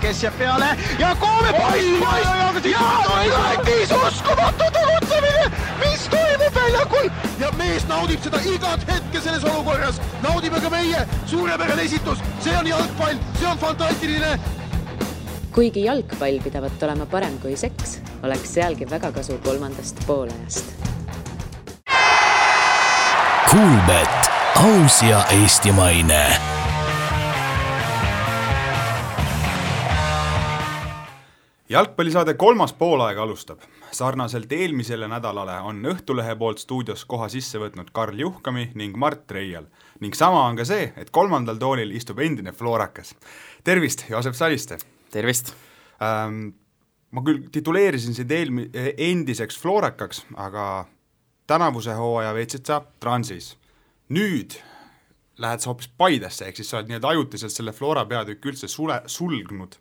kes jääb peale ja Koome poiss ja Lätis uskumatu tegutsemine, mis toimub väljakul ja mees naudib seda igat hetke selles olukorras, naudime ka meie, suurepärane esitus, see on jalgpall, see on fantastiline. Kuigi jalgpall pidavat olema parem kui seks, oleks sealgi väga kasu kolmandast poolajast. Kuulbet, aus ja eestimaine. Jalgpallisaade kolmas poolaeg alustab. Sarnaselt eelmisele nädalale on Õhtulehe poolt stuudios koha sisse võtnud Karl Juhkami ning Mart Reial. Ning sama on ka see, et kolmandal toolil istub endine Florakas. Tervist, Joosep Saliste! Tervist! Ma küll tituleerisin sind endiseks Florakaks, aga tänavuse hooaja veetsid sa Transis. Nüüd lähed sa hoopis Paidesse, ehk siis sa oled nii ajutiselt selle Flora peatükk üldse sulgnud.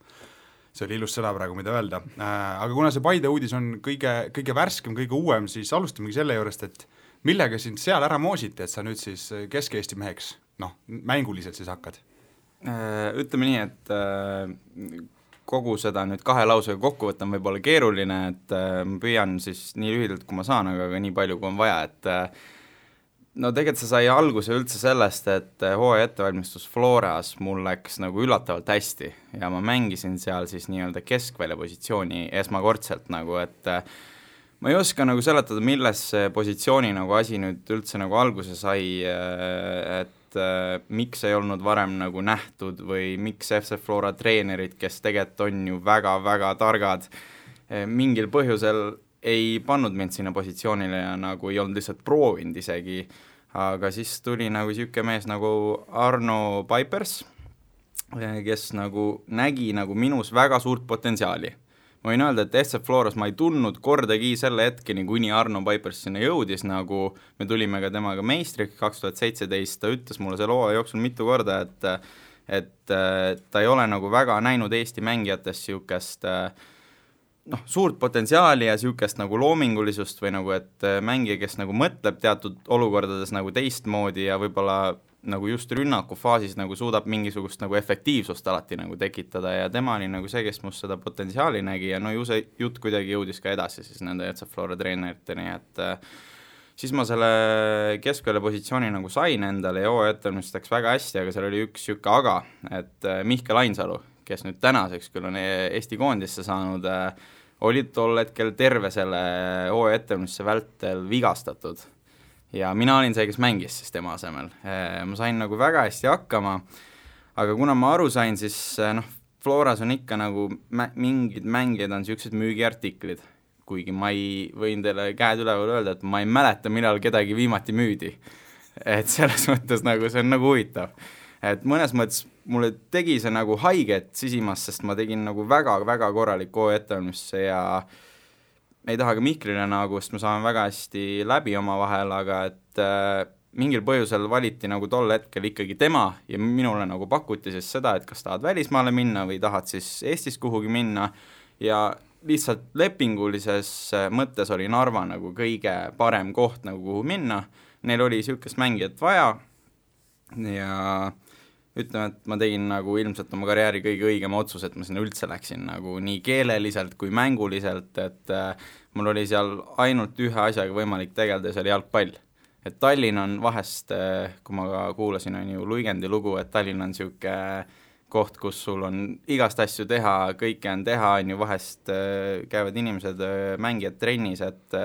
See oli ilus sõna praegu, mida öelda. Aga kuna see Paide uudis on kõige värskem, kõige uuem, siis alustamegi selle juurest, et millega sind seal ära moositi, et sa nüüd siis Kesk-Eesti meheks, mänguliselt siis hakkad? Ütleme nii, et kogu seda nüüd kahe lausega kokku võtta on võib-olla keeruline, et ma püüan siis nii lühidalt, kui ma saan, aga nii palju, kui on vaja, et tegelikult see sai alguse üldse sellest, et hooaja ettevalmistus Floras mul läks nagu üllatavalt hästi ja ma mängisin seal siis nii-öelda keskvälja positsiooni esmakordselt nagu, et ma ei oska nagu seletada, milles positsiooni nagu asi nüüd üldse nagu alguse sai, et miks ei olnud varem nagu nähtud või miks FC Flora treenerid, kes tegelikult on ju väga-väga targad, mingil põhjusel ei pannud mind sinna positsioonile ja nagu ei olnud lihtsalt proovinud isegi, aga siis tuli nagu siuke mees nagu Arno Paipers, kes nagu nägi nagu minus väga suurt potentsiaali. Ma võin öelda, et FC Floras ma ei tundnud kordagi selle hetkeni, kuni Arno Paipers sinna jõudis, nagu me tulime ka temaga meistriks 2017, ta ütles mulle selle hooaja jooksul mitu korda, et ta ei ole nagu väga näinud Eesti mängijates siukest suurt potentsiaali ja siukest nagu loomingulisust või nagu, et mängija, kes nagu mõtleb teatud olukordades nagu teistmoodi ja võib-olla nagu just rünnaku faasis nagu suudab mingisugust nagu efektiivsust alati nagu tekitada ja tema oli nagu see, kes must seda potentsiaali nägi ja ju see jutt kuidagi jõudis ka edasi siis nende FC Flora treeneriteni, et siis ma selle keskvälja positsiooni nagu sain endale ja hooaja ettevalmistuseks väga hästi, aga seal oli üks siuke aga, et Mihkel Ainsalu, kes nüüd tänaseks küll on Eesti koondisse saanud, oli tol hetkel terve selle hooaja ettevalmistuse vältel vigastatud. Ja mina olin see, kes mängis siis tema asemel. Ma sain nagu väga hästi hakkama, aga kuna ma aru sain, siis Floras on ikka nagu mingid mängijad on siuksed müügiartiklid, kuigi ma ei võin teile käed üleval öelda, et ma ei mäleta, millal kedagi viimati müüdi. Et selles mõttes nagu see on nagu huvitav. Et mõnes mõttes mulle tegi see nagu haiget sisimas, sest ma tegin nagu väga-väga korralik hooaja ettevalmistuse ja ei taha ka Mihklile nagu, sest me saame väga hästi läbi oma vahel, aga et mingil põhjusel valiti nagu tol hetkel ikkagi tema ja minule nagu pakuti siis seda, et kas tahad välismaale minna või tahad siis Eestis kuhugi minna ja lihtsalt lepingulises mõttes oli Narva nagu kõige parem koht nagu kuhu minna. Neil oli siukest mängijat vaja ja ütleme, et ma tegin nagu ilmselt oma karjääri kõige õigem otsus, et ma sinna üldse läksin nagu nii keeleliselt kui mänguliselt, et mul oli seal ainult ühe asjaga võimalik tegeleda ja see oli jalgpall. Et Tallinn on vahest, kui ma ka kuulasin on ju Luigendi lugu, et Tallinn on siuke koht, kus sul on igast asju teha, kõike on teha, on ju vahest käivad inimesed mängijad trennis, et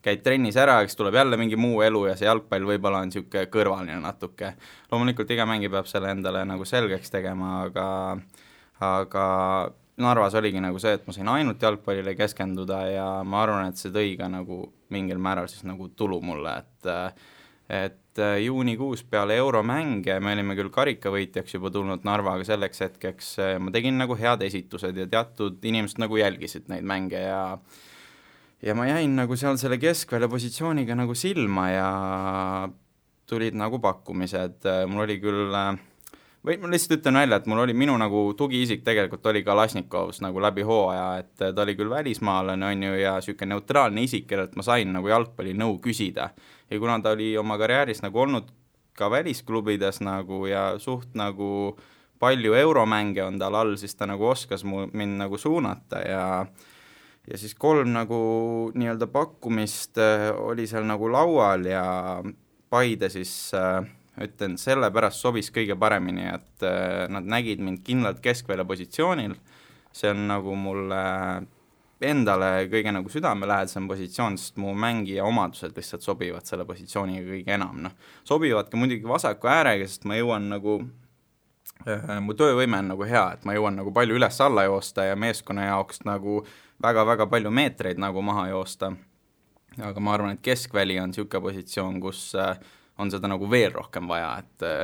käid trennis ära, eks tuleb jälle mingi muu elu ja see jalgpall võib-olla on siuke kõrvaline natuke. Loomulikult iga mängija peab selle endale nagu selgeks tegema, aga Narvas oligi nagu see, et ma sain ainult jalgpallile keskenduda ja ma arvan, et see tõi ka nagu mingil määral siis nagu tulu mulle, et juunikuus peale euromänge me olime küll karikavõitjaks juba tulnud Narvaga selleks hetkeks, ma tegin nagu head esitused ja teatud inimesed nagu jälgisid neid mänge ja ma jäin nagu seal selle keskvälja positsiooniga nagu silma ja tulid nagu pakkumised. Mul oli küll, või ma lihtsalt ütlen välja, et mul oli minu nagu tugiisik tegelikult oli Kalasnikovs nagu läbi hooaja, et ta oli küll välismaalane on ju ja siuke neutraalne isik, kellelt ma sain nagu jalgpalli nõu küsida. Ja kuna ta oli oma karjääris nagu olnud ka välisklubides nagu ja suht nagu palju euromänge on tal all, siis ta nagu oskas mind nagu suunata ja siis 3 nagu nii-öelda pakkumist oli seal nagu laual ja Paide siis ütlen, sellepärast sobis kõige paremini, et nad nägid mind kindlalt keskvälja positsioonil, see on nagu mulle endale kõige nagu südamelähedasem positsioon, sest mu mängija omadused lihtsalt sobivad selle positsiooniga kõige enam, noh. Sobivad ka muidugi vasaku äärega, sest ma jõuan nagu, mu töövõime on nagu hea, et ma jõuan nagu palju üles-alla joosta ja meeskonna jaoks nagu väga-väga palju meetreid nagu maha joosta. Aga ma arvan, et keskväli on niisugune positsioon, kus on seda nagu veel rohkem vaja,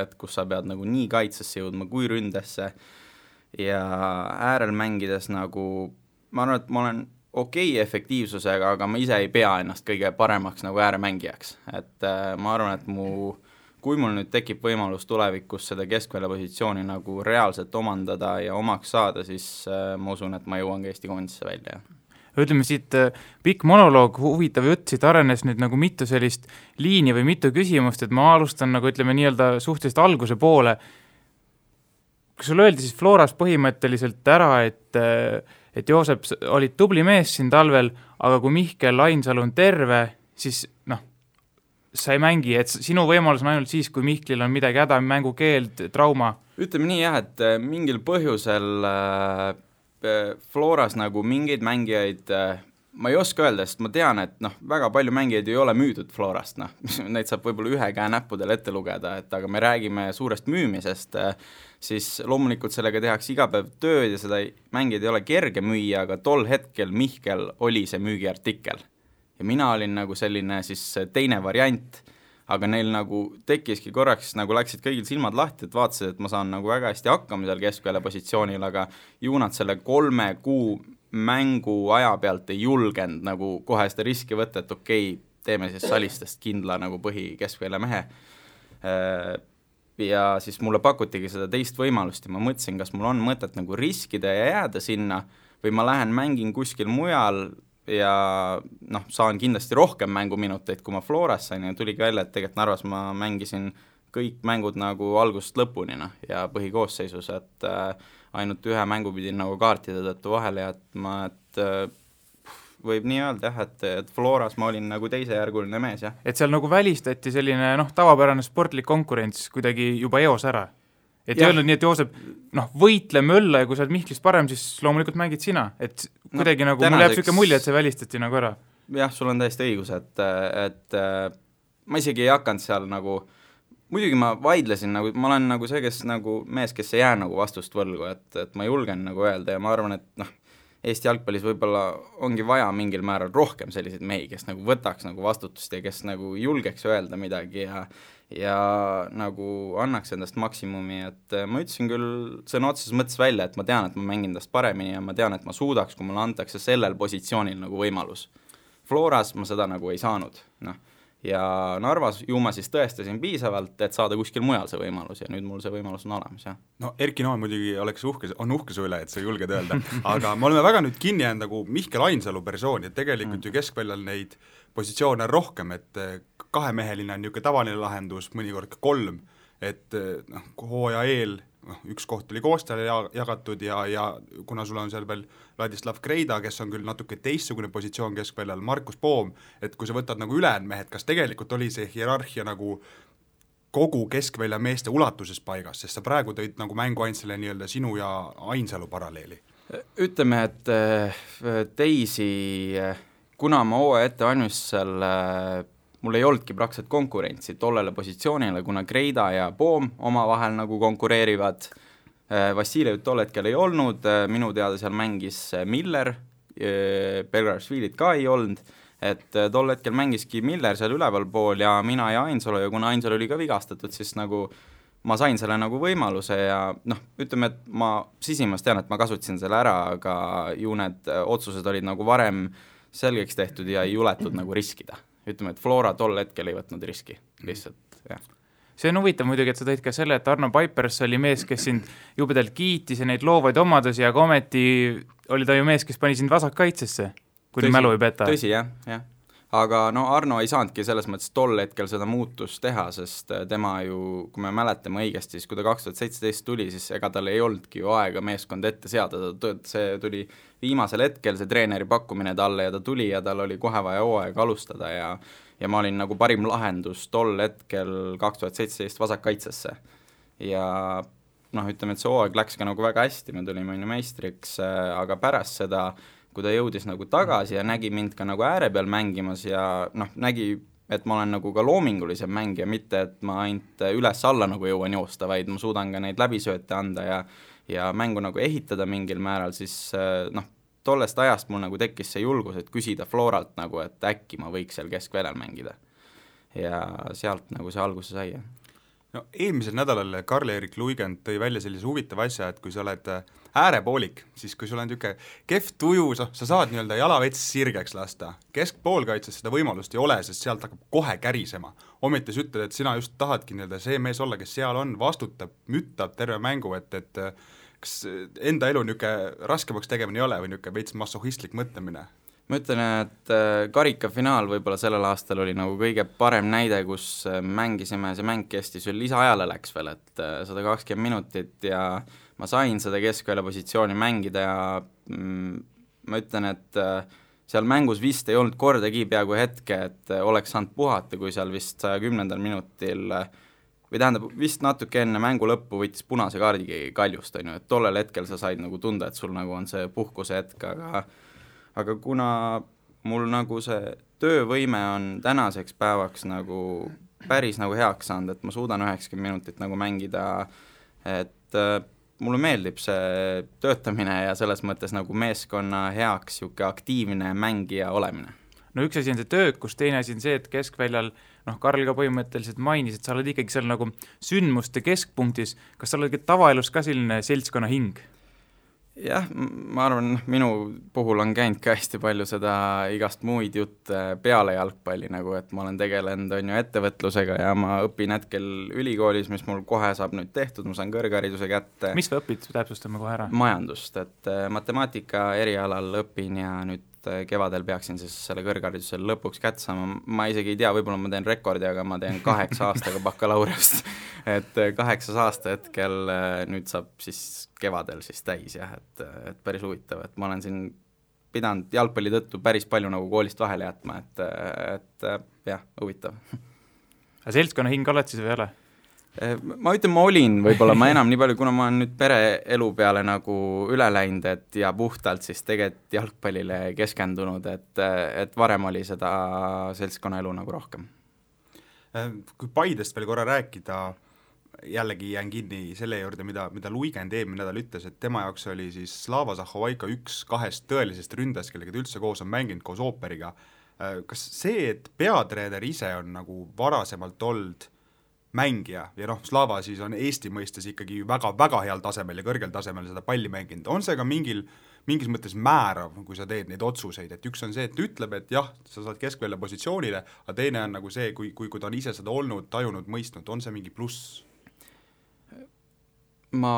et kus sa pead nagu nii kaitsesse jõudma kui ründesse ja äärel mängides nagu ma arvan, et ma olen okei efektiivsusega, aga ma ise ei pea ennast kõige paremaks nagu ääremängijaks. Et ma arvan, et kui mul nüüd tekib võimalus tulevikus seda keskvälja positsiooni nagu reaalselt omandada ja omaks saada, siis ma usun, et ma jõuan ka Eesti koondisse välja. Ütleme siit pikk monoloog, huvitav jutt, siit arenes nüüd nagu mitu sellist liini või mitu küsimust, et ma alustan nagu ütleme nii-öelda suhteliselt alguse poole. Kas sul öeldi siis Floras põhimõtteliselt ära, et Joosep oli tubli mees siin talvel, aga kui Mihkel Ainsalu on terve, siis sa ei mängi, et sinu võimalus on ainult siis, kui Mihklil on midagi häda, mängukeeld, trauma. Ütleme nii jah, et mingil põhjusel Floras nagu mingeid mängijaid ma ei oska öelda, sest ma tean, et väga palju mängijaid ei ole müüdud Florast, neid saab võib-olla ühe käe näppudel ette lugeda, et aga me räägime suurest müümisest, siis loomulikult sellega tehakse iga päev tööd ja seda mängijaid ei ole kerge müüa, aga tol hetkel Mihkel oli see müügiartikkel. Ja mina olin nagu selline siis teine variant, aga neil nagu tekkiski korraks, nagu läksid kõigil silmad lahti, et vaatasid, et ma saan nagu väga hästi hakkama seal keskvälja positsioonil, aga ju nad selle 3 kuu mängu aja pealt ei julgenud nagu kohe seda riski võtta, et okei, teeme siis Salistest kindla nagu põhi keskvälja mehe. Ja siis mulle pakutigi seda teist võimalust ja ma mõtlesin, kas mul on mõtet nagu riskida ja jääda sinna või ma lähen mängin kuskil mujal ja saan kindlasti rohkem mänguminuteid, kui ma Floras sain ja tuligi välja, et tegelikult Narvas ma mängisin kõik mängud nagu algusest lõpuni ja põhikoosseisus, et ainult ühe mängu pidin nagu kaartide tõttu vahele ja et võib nii öelda jah, et Floras ma olin nagu teisejärguline mees, jah. Et seal nagu välistati selline tavapärane sportlik konkurents kuidagi juba eos ära. Et ei öelnud nii, et Joosep, võitle mölla ja kui sa oled Mihklist parem, siis loomulikult mängid sina. Et kuidagi nagu, mul jääb selline mulje, et see välistati nagu ära. Jah, sul on täiesti õigus, et ma isegi ei hakanud seal nagu, muidugi ma vaidlesin, nagu, ma olen nagu see, kes nagu mees, kes ei jää nagu vastust võlgu, et ma julgen nagu öelda ja ma arvan, et Eesti jalgpallis võib-olla ongi vaja mingil määral rohkem selliseid mehi, kes nagu võtaks nagu vastutust ja kes nagu julgeks öelda midagi ja nagu annaks endast maksimumi, et ma ütlesin küll sõna otseses mõttes välja, et ma tean, et ma mängin endast paremini ja ma tean, et ma suudaks, kui mulle antakse sellel positsioonil nagu võimalus. Floras ma seda nagu ei saanud, ja Narvas ju ma siis tõestasin piisavalt, et saada kuskil mujal see võimalus ja nüüd mul see võimalus on olemas, jah. Erki Noon muidugi on uhke su üle, et sa julged öelda, aga me oleme väga nüüd kinni jäänud nagu Mihkel Ainsalu persooni, et tegelikult ju keskväljal neid positsioone rohkem, et kahemeheline on niisugune tavaline lahendus, mõnikord ka 3, et hooaja eel üks koht oli koostajale jagatud ja kuna sul on seal veel Ladislav Kreida, kes on küll natuke teistsugune positsioon keskväljal, Markus Poom, et kui sa võtad nagu ülejäänud mehed, kas tegelikult oli see hierarhia nagu kogu keskvälja meeste ulatuses paigas, sest sa praegu tõid nagu mängu ainult selle nii-öelda sinu ja Ainsalu paralleeli? Ütleme, et teisi, kuna ma hooaja ette valmistusel mul ei olnudki praktiliselt konkurentsi tollele positsioonile, kuna Kreida ja Poom omavahel nagu konkureerivad. Vassiljev tol hetkel ei olnud, minu teada seal mängis Miller, Belgrashvilit ka ei olnud, et tol hetkel mängiski Miller seal üleval pool ja mina ja Ainsalu ja kuna Ainsalu oli ka vigastatud, siis nagu ma sain selle nagu võimaluse ja ütleme, et ma sisimas tean, et ma kasutasin selle ära, aga ju need otsused olid nagu varem selgeks tehtud ja ei juletud nagu riskida. Ütleme, et Flora tol hetkel ei võtnud riski, lihtsalt, jah. See on huvitav muidugi, et sa tõid ka selle, et Arno Paipers oli mees, kes sind jubedalt kiitis ja neid loovaid omadusi, aga ometi oli ta ju mees, kes pani sind vasakkaitsesse, kui mälu ei peta. Tõsi, jah. aga no Arno ei saanudki selles mõttes tol hetkel seda muutust teha, sest tema ju, kui me mäletame õigesti, siis kui ta 2017 tuli, siis ega tal ei olnudki ju aega meeskond ette seada, see tuli viimasel hetkel, see treeneri pakkumine talle ja ta tuli ja tal oli kohe vaja hooaega alustada ja ma olin nagu parim lahendus tol hetkel 2017 vasakkaitsesse. Ja noh, ütleme, et see hooaeg läks ka nagu väga hästi, me tulime meistriks, aga pärast seda kui ta jõudis nagu tagasi ja nägi mind ka nagu ääre peal mängimas ja noh, nägi, et ma olen nagu ka loomingulisem mängija, mitte et ma ainult üles-alla nagu jõuan joosta, vaid ma suudan ka neid läbisööte anda ja mängu nagu ehitada mingil määral, siis noh, tollest ajast mul nagu tekkis see julgus, et küsida Floralt nagu, et äkki ma võiks seal keskväljal mängida. Ja sealt nagu see alguse sai. No, eelmisel nädalal Karl-Erik Luigend tõi välja sellise huvitava asja, et kui sa oled äärepoolik, siis kui sul on niisugune kehv tuju, sa saad nii-öelda jalavets sirgeks lasta. Keskpoolkaitses seda võimalust ei ole, sest sealt hakkab kohe kärisema. Ometi sa ütled, et sina just tahadki nii-öelda see mees olla, kes seal on, vastutab, müttab terve mängu, et kas enda elu niisugune raskemaks tegemine ei ole või niisugune veits masohistlik mõtlemine? Ma ütlen, et karikafinaal võib-olla sellel aastal oli nagu kõige parem näide, kus mängisime, see mäng kestis veel lisaajale läks veel, et 120 minutit ja ma sain seda keskvälja positsiooni mängida ja ma ütlen, et seal mängus vist ei olnud kordagi peaaegu hetke, et oleks saanud puhata, kui seal vist 110. minutil või tähendab, vist natuke enne mängu lõppu võttis punase kaardi Kaljust, on ju, et tollel hetkel sa said nagu tunda, et sul nagu on see puhkuse hetk, aga kuna mul nagu see töövõime on tänaseks päevaks nagu päris nagu heaks saanud, et ma suudan 90 minutit nagu mängida, et mulle meeldib see töötamine ja selles mõttes nagu meeskonna heaks siuke aktiivne mängija olemine. No üks asi on see töökus, teine asi on see, et keskväljal, noh, Karl ka põhimõtteliselt mainis, et sa oled ikkagi seal nagu sündmuste keskpunktis, kas sa oled tavaelus ka selline seltskonna hing? Jah, ma arvan, minu puhul on käinud ka hästi palju seda igast muid jutte peale jalgpalli, nagu et ma olen tegelenud on ju ettevõtlusega ja ma õpin hetkel ülikoolis, mis mul kohe saab nüüd tehtud, ma saan kõrghariduse kätte. Mis sa õpid, täpsustame kohe ära? Majandust, et matemaatika erialal õpin ja nüüd kevadel peaksin siis selle kõrgharidusel lõpuks kätte saama, ma isegi ei tea, võib-olla ma teen rekordi, aga ma teen 8 aastaga bakalaureust, et 8 aasta hetkel nüüd saab siis kevadel siis täis jah, et päris huvitav, et ma olen siin pidanud jalgpalli tõttu päris palju nagu koolist vahele jätma, et jah, huvitav. Aga seltskonna hing oled siis või ei ole? Ma ütlen, ma olin võib-olla, ma enam nii palju, kuna ma olen nüüd pereelu peale nagu üle läinud, et ja puhtalt siis tegelikult jalgpallile keskendunud, et varem oli seda seltskonna elu nagu rohkem. Kui Paidest veel korra rääkida, jällegi jään kinni selle juurde, mida Luigend eelmine nädal ütles, et tema jaoks oli siis Slava Zahovaiko üks 2 tõelisest ründajast, kellega ta üldse koos on mänginud koos Ooperiga. Kas see, et peatreener ise on nagu varasemalt olnud mängija ja noh, Slava siis on Eesti mõistes ikkagi väga-väga heal tasemel ja kõrgel tasemel seda palli mänginud, on see ka mingis mõttes määrav, kui sa teed neid otsuseid, et üks on see, et ütleb, et jah, sa saad keskvälja positsioonile, aga teine on nagu see, kui ta on ise seda olnud, tajunud, mõistnud, on see mingi pluss? Ma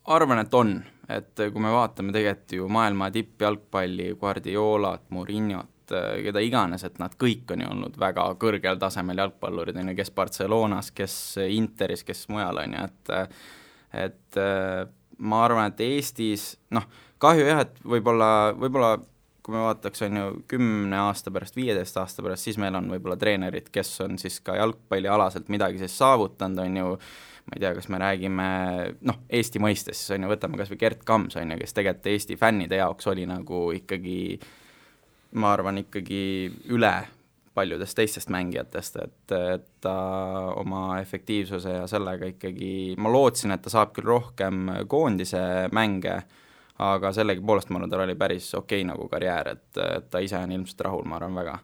arvan, et on, et kui me vaatame tegelikult ju maailma tippjalgpalli, Guardiolat, Mourinhot, keda iganes, et nad kõik on ju olnud väga kõrgel tasemel jalgpallurid, kes Barcelonas, kes Interis, kes mujal on ju, et ma arvan, et Eestis, noh, kahju jah, et võib-olla kui me vaataks on ju 10 aasta pärast, 15 aasta pärast, siis meil on võib-olla treenerid, kes on siis ka jalgpallialaselt midagi siis saavutanud, on ju, ma ei tea, kas me räägime, noh, Eesti mõistes, siis on ju, võtame kas või Gert Kams, on ju, kes tegelikult Eesti fännide jaoks oli nagu ikkagi ma arvan ikkagi üle paljudest teistest mängijatest, et ta oma efektiivsuse ja sellega ikkagi, ma lootsin, et ta saab küll rohkem koondise mänge, aga sellegi poolest ma arvan, tal oli päris okei nagu karjäär, et ta ise on ilmselt rahul, ma arvan väga.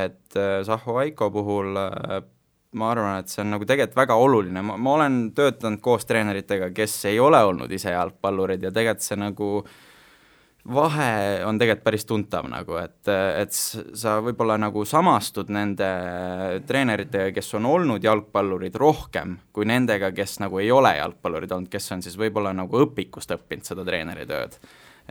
Et Zahovaiko puhul ma arvan, et see on nagu tegelikult väga oluline, ma olen töötanud koos treeneritega, kes ei ole olnud ise jalgpallurid ja tegelikult see nagu vahe on tegelikult päris tuntav nagu, et sa võib-olla nagu samastud nende treeneritega, kes on olnud jalgpallurid rohkem kui nendega, kes nagu ei ole jalgpallurid olnud, kes on siis võib-olla nagu õpikust õppinud seda treeneritööd.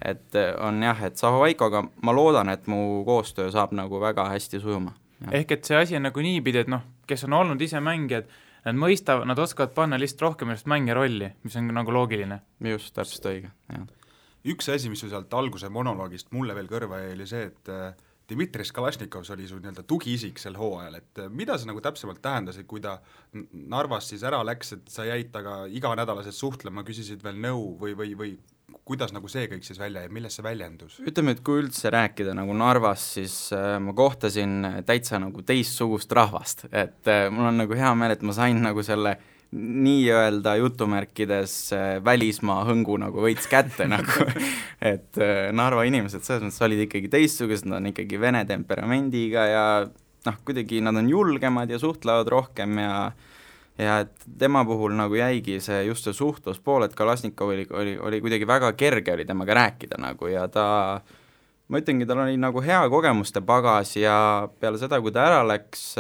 et on jah, et Zahovaikoga ma loodan, et mu koostöö saab nagu väga hästi sujuma. Ehk et see asi on nagu niipidi, et kes on olnud ise mängijad, nad mõistavad, nad oskavad panna lihtsalt rohkem ennast mängija rolli, mis on nagu loogiline. Just, täpselt õige, jah. Üks asi, mis sealt alguse monoloogist mulle veel kõrva jäi, oli see, et Dmitri Kalašnikovs oli su nii-öelda tugiisik sel hooajal, et mida see nagu täpsemalt tähendas, et kui ta Narvast siis ära läks, et sa jäid taga iganädalaselt suhtlema, küsisid veel nõu või kuidas nagu see kõik siis välja ja milles see väljendus? Ütleme, et kui üldse rääkida nagu Narvas, siis ma kohtasin täitsa nagu teistsugust rahvast, et mul on nagu hea meel, et ma sain nagu selle nii-öelda jutumärkides välismaa hõngu nagu võits kätte nagu, et Narva inimesed selles mõttes olid ikkagi teistsugused, nad on ikkagi vene temperamendiga ja kuidagi nad on julgemad ja suhtlevad rohkem ja et tema puhul nagu jäigi see just see suhtluspool, et Kalašnikov oli kuidagi väga kerge oli temaga rääkida nagu ja ma ütlengi, tal oli nagu hea kogemuste pagas ja peale seda, kui ta ära läks,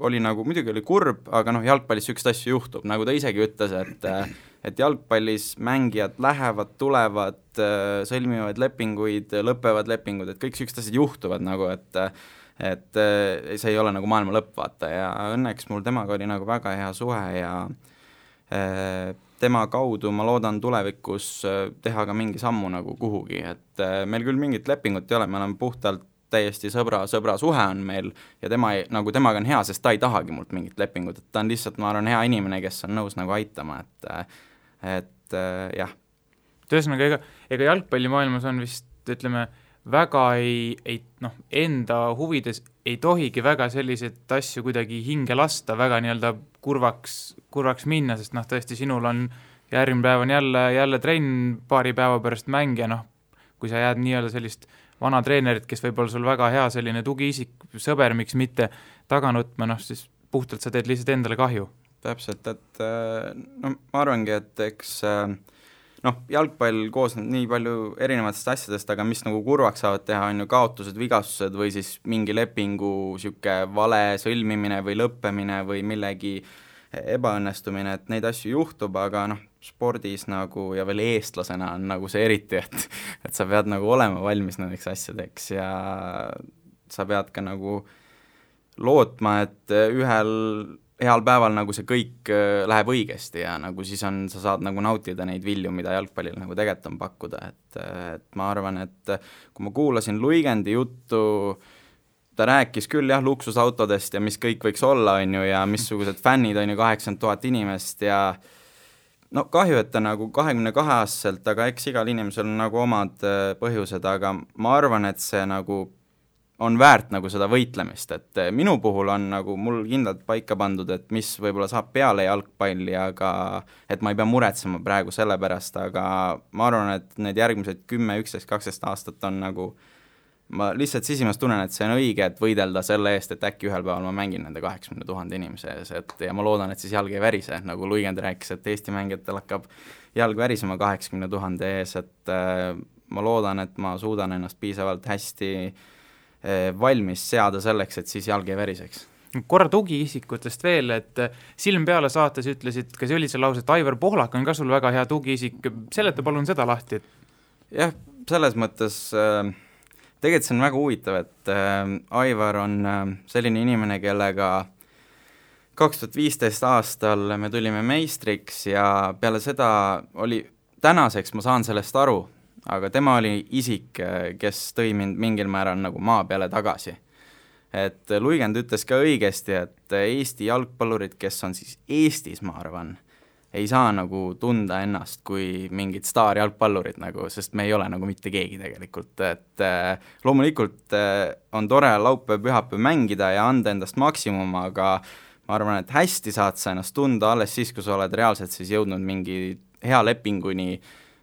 oli nagu, muidugi oli kurb, aga jalgpallis sükst asju juhtub, nagu ta isegi ütles, et jalgpallis mängijad lähevad, tulevad, sõlmivad lepinguid, lõpevad lepingud, et kõik sükst asjad juhtuvad nagu, et see ei ole nagu maailma lõpp, vaata, ja õnneks mul temaga oli nagu väga hea suhe ja tema kaudu ma loodan tulevikus teha ka mingi sammu nagu kuhugi, et meil küll mingit lepingut ei ole, me oleme puhtalt täiesti sõbra suhe on meil ja temaga on hea, sest ta ei tahagi mult mingit lepingut, et ta on lihtsalt, ma arvan, hea inimene, kes on nõus nagu aitama, et jah. Tõesõnaga, ega jalgpallimaailmas on vist, ütleme, väga enda huvides ei tohigi väga selliseid asju kuidagi hinge lasta, väga nii-öelda kurvaks minna, sest tõesti sinul on järgmine päev on jälle trenn paari päeva pärast mäng ja kui sa jääd nii-öelda sellist vana treenerit, kes võib olla sul väga hea selline tugiisik, sõber, miks mitte taga nutma, siis puhtalt sa teed lihtsalt endale kahju. Täpselt, et ma arvangi, et eks jalgpall koosneb nii palju erinevatest asjadest, aga mis nagu kurvaks saavad teha, on ju kaotused, vigastused või siis mingi lepingu siuke vale sõlmimine või lõppemine või millegi ebaõnnestumine, et neid asju juhtub, aga spordis nagu ja veel eestlasena on nagu see eriti, et sa pead nagu olema valmis nendeks asjadeks ja sa pead ka nagu lootma, et ühel heal päeval nagu see kõik läheb õigesti ja nagu siis sa saad nagu nautida neid vilju, mida jalgpallil nagu tegelikult on pakkuda, et ma arvan, et kui ma kuulasin Luigendi juttu, ta rääkis küll jah luksusautodest ja mis kõik võiks olla, on ju, ja missugused fännid on ju 80 000 inimest ja kahju, et ta nagu 22-aastaselt, aga eks igal inimesel on nagu omad põhjused, aga ma arvan, et see nagu on väärt nagu seda võitlemist, et minu puhul on nagu mul kindlalt paika pandud, et mis võib-olla saab peale jalgpalli, aga et ma ei pea muretsema praegu selle pärast, aga ma arvan, et need järgmised 10, 11, 12 aastat on nagu, ma lihtsalt sisimas tunnen, et see on õige, et võidelda selle eest, et äkki ühel päeval ma mängin nende 80 000 inimese ees, ja ma loodan, et siis jalg ei värise, nagu Luigend rääkis, et Eesti mängijatel hakkab jalg värisema 80 000 ees, et ma loodan, et ma suudan ennast piisavalt hästi valmis seada selleks, et siis jalg ei väriseks. Korra tugiisikutest veel, et Silm peale saates ütlesid, kas oli see lause, et Aivar Pohlak on ka sul väga hea tugiisik, seleta palun seda lahti. Jah, selles mõttes tegelikult see on väga huvitav, et Aivar on selline inimene, kellega 2015 aastal me tulime meistriks ja peale seda oli, tänaseks ma saan sellest aru, aga tema oli isik, kes tõi mind mingil määral nagu maa peale tagasi. Et Luigend ütles ka õigesti, et Eesti jalgpallurid, kes on siis Eestis, ma arvan, ei saa nagu tunda ennast kui mingid staarjalgpallurid nagu, sest me ei ole nagu mitte keegi tegelikult, et loomulikult on tore laupäev, pühapäev mängida ja anda endast maksimum, aga ma arvan, et hästi saad sa ennast tunda alles siis, kui sa oled reaalselt siis jõudnud mingi hea lepinguni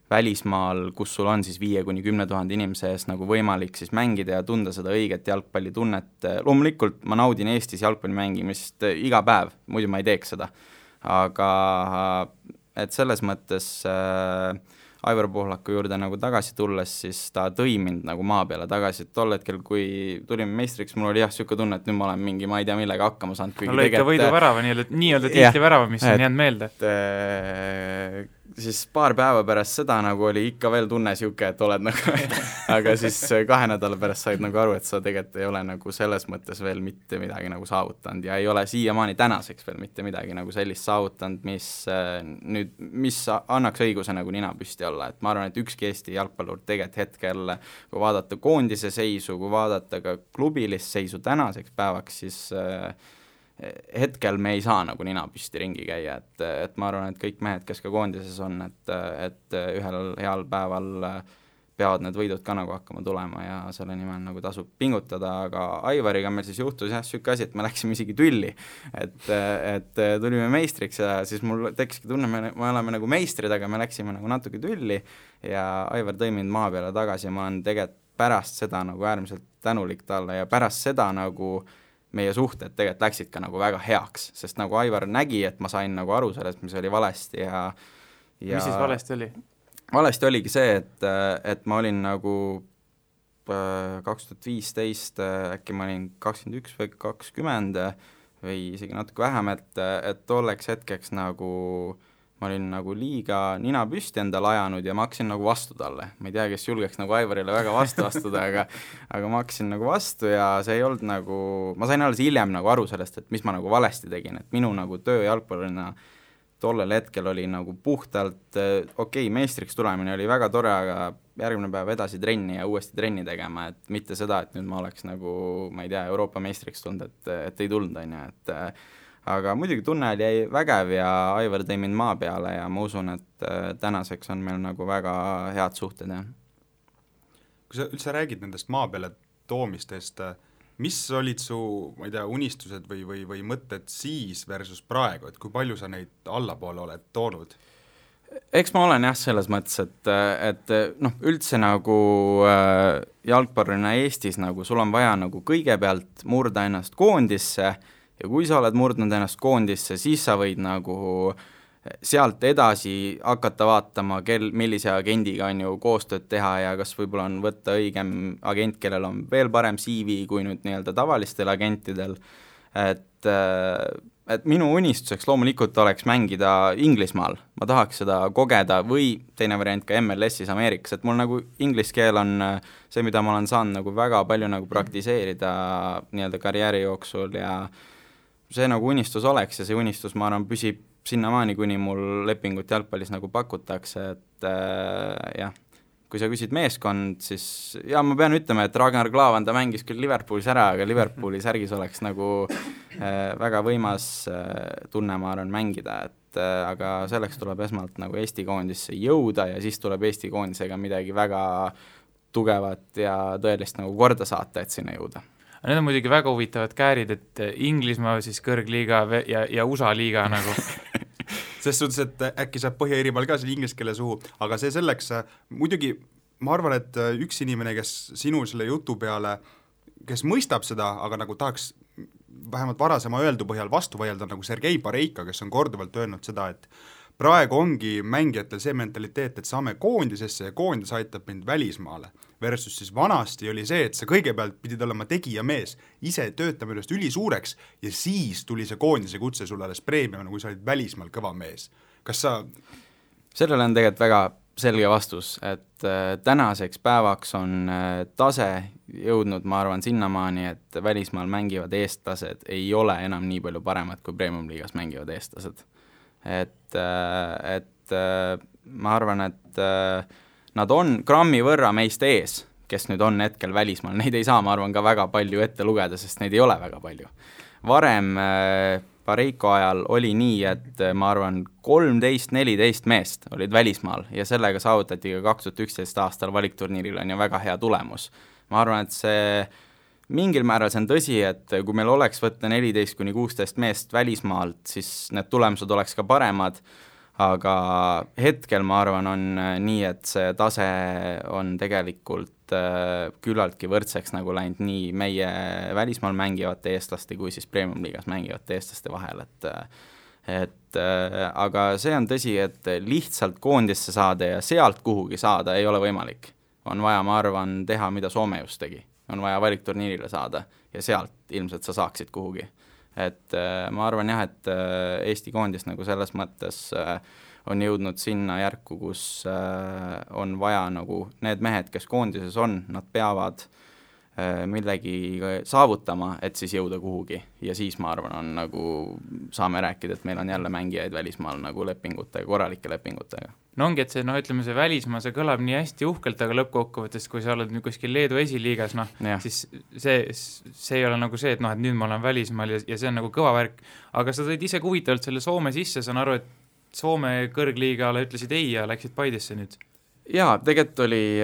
välismaal, kus sul on siis 5-10 000 inimese ees nagu võimalik siis mängida ja tunda seda õiget jalgpallitunnet. Loomulikult ma naudin Eestis jalgpalli mängimist iga päev, muidu ma ei teeks seda. Aga et selles mõttes Aivar Pohlaku juurde nagu tagasi tulles, siis ta tõi mind nagu maa peale tagasi, et tol hetkel, kui tulime meistriks, mul oli jah siuke tunne, et nüüd ma olen mingi, ma ei tea millega hakkama saanud. No lõika võidu värava, nii-öelda tiitli värava, mis on jäänud meelde. siis paar päeva pärast seda nagu oli ikka veel tunne siuke, et oled nagu aga siis 2 nädala pärast said nagu aru, et sa tegelikult ei ole nagu selles mõttes veel mitte midagi nagu saavutanud ja ei ole siiamaani tänaseks veel mitte midagi nagu sellist saavutanud, mis annaks õiguse nagu nina püsti olla, et ma arvan, et ükski Eesti jalgpallur tegelikult hetkel, kui vaadata koondise seisu, kui vaadata ka klubilist seisu tänaseks päevaks, siis hetkel me ei saa nagu nina püsti ringi käia, et ma arvan, et kõik mehed, kes ka koondises on, et ühel heal päeval peavad need võidud ka nagu hakkama tulema ja selle nimel nagu tasub pingutada, aga Aivariga meil siis juhtus jah, siuke asi, et me läksime isegi tülli, et tulime meistriks ja siis mul tekkiski tunne, me oleme nagu meistrid, aga me läksime nagu natuke tülli ja Aivar tõi mind maa peale tagasi ja ma olen tegelikult pärast seda nagu äärmiselt tänulik talle ja pärast seda nagu meie suhted tegelikult läksid ka nagu väga heaks, sest nagu Aivar nägi, et ma sain nagu aru sellest, mis oli valesti ja mis siis valesti oli? Valesti oligi see, et ma olin nagu 2015, äkki ma olin 21 või 20 või isegi natuke vähem, et tolleks hetkeks nagu ma olin nagu liiga nina püsti endale ajanud ja ma hakkasin nagu vastu talle. Ma ei tea, kes julgeks nagu Aivarile väga vastu astuda, aga ma hakkasin nagu vastu ja see ei olnud nagu, ma sain alles hiljem nagu aru sellest, et mis ma nagu valesti tegin, et minu nagu töö jalgpallurina tollel hetkel oli nagu puhtalt meistriks tulemine oli väga tore, aga järgmine päev edasi trenni ja uuesti trenni tegema, et mitte seda, et nüüd ma oleks nagu, ma ei tea, Euroopa meistriks tulnud, et ei tulnud, on ju, et aga muidugi tunne oli vägev ja Aivar tõi mind maa peale ja ma usun, et tänaseks on meil nagu väga head suhted. Ja. Kui sa üldse räägid nendest maa peale toomistest, mis olid su, ma ei tea, unistused või mõtted siis versus praegu, et kui palju sa neid allapoole oled toonud? Eks ma olen jah selles mõttes, et üldse nagu jalgpallurina Eestis nagu sul on vaja nagu kõigepealt murda ennast koondisse ja kui sa oled murdnud ennast koondisse, siis sa võid nagu sealt edasi hakata vaatama, millise agendiga on ju koostööd teha ja kas võib-olla on võtta õigem agent, kellel on veel parem CV kui nüüd nii-öelda tavalistel agentidel, et minu unistuseks loomulikult oleks mängida Inglismaal, ma tahaks seda kogeda või teine variant ka MLS-is Ameerikas, et mul nagu inglise keel on see, mida ma olen saanud nagu väga palju nagu praktiseerida nii-öelda karjääri jooksul ja see nagu unistus oleks ja see unistus, ma arvan, püsib sinnamaani, kuni mul lepingut jalgpallis nagu pakutakse, et jah, kui sa küsid meeskond, siis ja ma pean ütlema, et Ragnar Klavan, ta mängis küll Liverpoolis ära, aga Liverpooli särgis oleks nagu väga võimas tunne, ma arvan, mängida, et aga selleks tuleb esmalt nagu Eesti koondisse jõuda ja siis tuleb Eesti koondisega midagi väga tugevat ja tõelist nagu korda saata, et sinna jõuda. Need on muidugi väga huvitavad käärid, et Inglismaa siis kõrgliiga ja USA liiga nagu. Selles suhtes, et äkki saab Põhja-Iirimaal ka selle inglise keele suhu, aga see selleks, muidugi ma arvan, et üks inimene, kes sinu selle jutu peale, kes mõistab seda, aga nagu tahaks vähemalt varasema öeldu põhjal vastu vaielda, nagu Sergei Pareika, kes on korduvalt öelnud seda, et praegu ongi mängijatel see mentaliteet, et saame koondisesse ja koondis aitab mind välismaale. Versus siis vanasti oli see, et sa kõigepealt pidid olema tegijamees, ise töötama ennast ülisuureks ja siis tuli see koondise kutse sulle alles preemiamine, kui sa olid välismaal kõva mees. Kas sa... Sellele on tegelikult väga selge vastus, et tänaseks päevaks on tase jõudnud, ma arvan, sinnamaani, et välismaal mängivad eestlased ei ole enam nii palju paremad, kui Premium-liigas mängivad eestlased. Et ma arvan, et nad on grammi võrra meist ees, kes nüüd on hetkel välismaal, neid ei saa, ma arvan, ka väga palju ette lugeda, sest neid ei ole väga palju. Varem Pareiko ajal oli nii, et ma arvan 13-14 meest olid välismaal ja sellega saavutati ka 2011 aastal valikturniiril on ju väga hea tulemus. Ma arvan, et see mingil määral see on tõsi, et kui meil oleks võtta 14-16 meest välismaalt, siis need tulemused oleks ka paremad, aga hetkel ma arvan on nii, et see tase on tegelikult küllaltki võrdseks nagu läinud nii meie välismaal mängivate eestlaste kui siis Premium-liigas mängivate eestlaste vahel, et aga see on tõsi, et lihtsalt koondisse saada ja sealt kuhugi saada ei ole võimalik. On vaja, ma arvan, teha, mida Soome just tegi. On vaja valikturniirile saada ja sealt ilmselt sa saaksid kuhugi. Et ma arvan jah, et Eesti koondis nagu selles mõttes on jõudnud sinna järku, kus on vaja nagu need mehed, kes koondises on, nad peavad millegi saavutama, et siis jõuda kuhugi ja siis ma arvan, on nagu saame rääkida, et meil on jälle mängijaid välismaal nagu lepingutega, korralike lepingutega. No ongi, et see, ütleme see välismaa, see kõlab nii hästi uhkelt, aga lõppkokkuvõttes, kui sa oled nüüd kuskil Leedu esiliigas, siis see ei ole nagu see, et et nüüd ma olen välismaal ja see on nagu kõva värk, aga sa tõid ise huvitavalt selle Soome sisse, saan aru, et Soome kõrgliigale ütlesid ei ja läksid Paidesse nüüd. Jaa, tegelikult oli,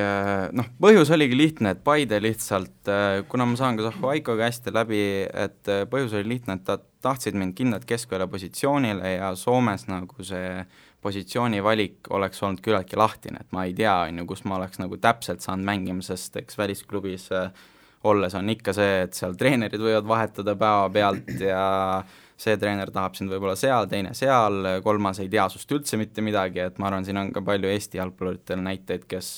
põhjus oligi lihtne, et Paide lihtsalt, kuna ma saan ka Zahho Aikoga hästi läbi, et põhjus oli lihtne, et tahtsid mind kindlalt keskvälja positsioonile ja Soomes nagu see positsiooni valik oleks olnud küllaltki lahtine, et ma ei tea, kus ma oleks nagu täpselt saanud mängima, sest eks välisklubis olles on ikka see, et seal treenerid võivad vahetada päeva pealt ja see treener tahab sind võib-olla seal, teine seal, kolmas ei tea sust üldse mitte midagi, et ma arvan, siin on ka palju Eesti jalgpalluritel näiteid, kes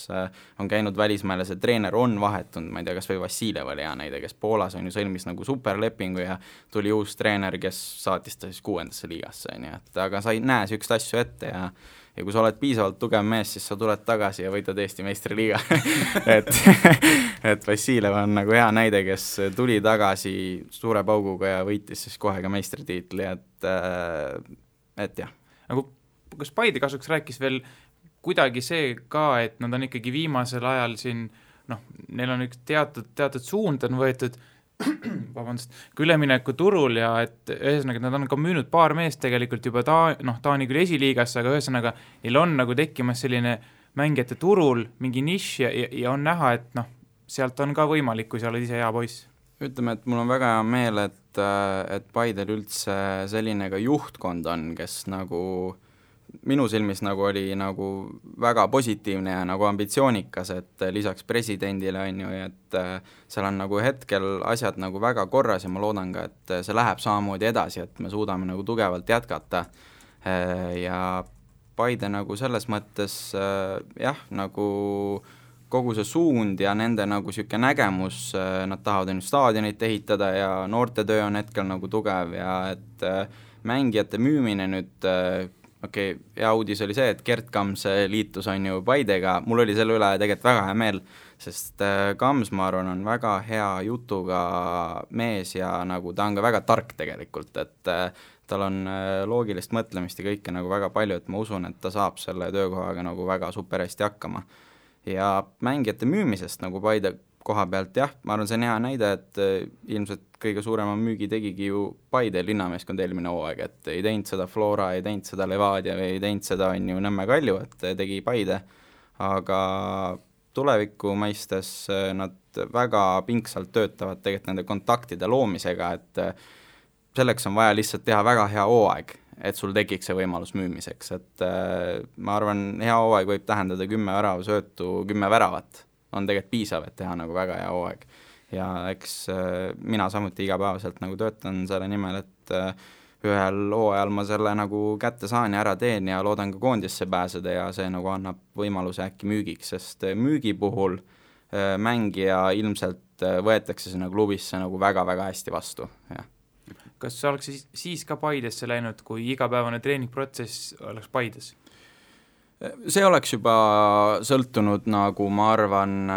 on käinud välismaal ja see treener on vahetunud, ma ei tea, kas või Vassiljev oli hea näide, kes Poolas on ju sõlmis nagu superlepingu ja tuli uus treener, kes saatis ta siis 6. liigasse, nii et aga sa ei näe sükst asju ette ja kui sa oled piisavalt tugev mees, siis sa tuled tagasi ja võidad Eesti meistriliiga et Vassiljev on nagu hea näide, kes tuli tagasi suure pauguga ja võitis siis kohe ka meistritiitli, et jah. Nagu, kas Paide kasuks rääkis veel kuidagi see ka, et nad on ikkagi viimasel ajal siin, neil on üks teatud suund on võetud kui ülemineku turul ja et ühesõnaga nad on ka müünud paar meest tegelikult juba Taani küll esiliigasse, aga ühesõnaga neil on nagu tekkimas selline mängijate turul mingi nišš ja on näha, et sealt on ka võimalik, kui sa oled ise hea poiss. Ütleme, et mul on väga hea meel, et Paidel üldse selline ka juhtkond on, kes nagu minu silmis nagu oli nagu väga positiivne ja nagu ambitsioonikas, et lisaks presidendile on ju, et seal on nagu hetkel asjad nagu väga korras ja ma loodan ka, et see läheb samamoodi edasi, et me suudame nagu tugevalt jätkata ja Paide nagu selles mõttes jah, nagu kogu see suund ja nende nagu siuke nägemus, nad tahavad ennast staadionit ehitada ja noortetöö on hetkel nagu tugev ja et mängijate müümine nüüd hea uudis oli see, et Gert Kams liitus on ju Paidega, mul oli selle üle tegelikult väga hea meel, sest Kams, ma arvan, on väga hea jutuga mees ja nagu ta on ka väga tark tegelikult, et tal on loogilist mõtlemist ja kõike nagu väga palju, et ma usun, et ta saab selle töökohaga nagu väga super hästi hakkama. Ja mängijate müümisest nagu Paide koha pealt, jah, ma arvan, see on hea näide, et ilmselt kõige suurema müügi tegigi ju Paide linnameeskond eelmine hooaeg, et ei teinud seda Flora, ei teinud seda Levadia või ei teinud seda on ju Nõmme Kalju, et tegi Paide, aga tuleviku mõistes nad väga pingsalt töötavad tegelikult nende kontaktide loomisega, et selleks on vaja lihtsalt teha väga hea hooaeg, et sul tekiks see võimalus müümiseks, et ma arvan, hea hooaeg võib tähendada 10 väravasöötu, 10 väravat on tegelikult piisav, et teha nagu väga hea hooaeg. Ja eks mina samuti igapäevaselt nagu töötan selle nimel, et ühel hooajal ma selle nagu kätte saan ja ära teen ja loodan ka koondisse pääseda ja see nagu annab võimaluse äkki müügiks, sest müügi puhul mängija ilmselt võetakse sinna klubisse nagu väga-väga hästi vastu, jah. Kas sa oleks siis ka Paidesse läinud, kui igapäevane treeningprotsess oleks Paides? See oleks juba sõltunud nagu ma arvan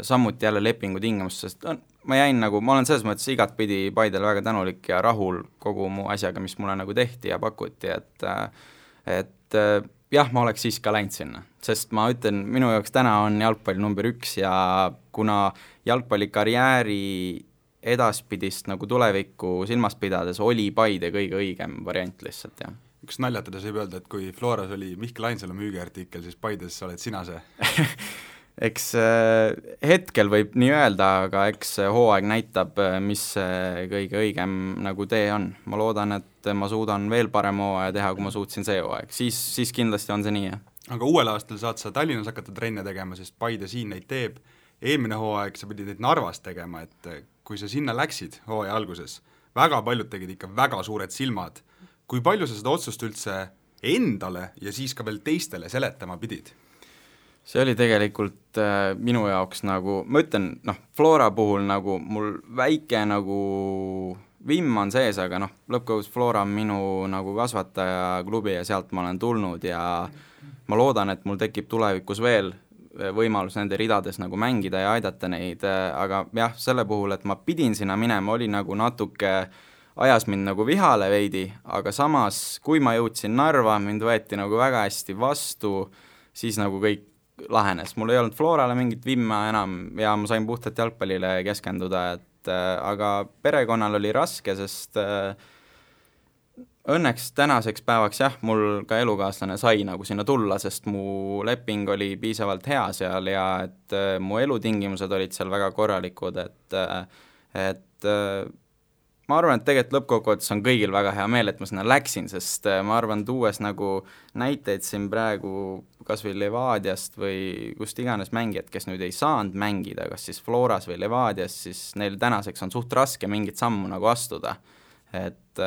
samuti jälle lepingu tingimust, sest ma olen selles mõttes igatpidi Paidele väga tänulik ja rahul kogu mu asjaga, mis mulle nagu tehti ja pakuti, et jah, ma oleks siis ka läinud sinna, sest ma ütlen, minu jaoks täna on jalgpalli number 1 ja kuna jalgpallikarjääri edaspidist nagu tulevikku silmas pidades oli Paide kõige õigem variant lihtsalt, jah. Üks naljatades võib öelda, et kui Floras oli Mihkel Ainsalu müügiartikkel, siis Paides oled sina see? Eks hetkel võib nii öelda, aga eks hooaeg näitab, mis kõige õigem nagu tee on. Ma loodan, et ma suudan veel parem hooaja teha, kui ma suutsin see hooaeg. Siis kindlasti on see nii, jah. Aga uuel aastal saad sa Tallinnas hakata trenne tegema, sest Paide siin neid teeb. Eelmine hooaeg sa pidid neid Narvas tegema, et kui sa sinna läksid hooaja alguses, väga paljud tegid ikka väga suured silmad. Kui palju sa seda otsust üldse endale ja siis ka veel teistele seletama pidid? See oli tegelikult minu jaoks nagu, ma ütlen, Flora puhul nagu mul väike nagu vimm on sees, aga noh, lõppkogus Flora on minu nagu kasvataja klubi ja sealt ma olen tulnud ja ma loodan, et mul tekib tulevikus veel võimalus nende ridades nagu mängida ja aidata neid, aga jah, selle puhul, et ma pidin sinna minema, oli nagu natuke ajas mind nagu vihale veidi, aga samas, kui ma jõudsin Narva, mind võeti nagu väga hästi vastu, siis nagu kõik lahenes. Mul ei olnud Florale mingit vimma enam ja ma sain puhtalt jalgpallile keskenduda, aga perekonnal oli raske, sest õnneks tänaseks päevaks jah, mul ka elukaaslane sai nagu sinna tulla, sest mu leping oli piisavalt hea seal ja et mu elutingimused olid seal väga korralikud, et ma arvan, et tegelikult lõppkokkuvõttes on kõigil väga hea meel, et ma sinna läksin, sest ma arvan, tuues nagu näiteid siin praegu kas või Levadiast või kust iganes mängijad, kes nüüd ei saanud mängida, kas siis Floras või Levadias, siis neil tänaseks on suht raske mingit sammu nagu astuda. Et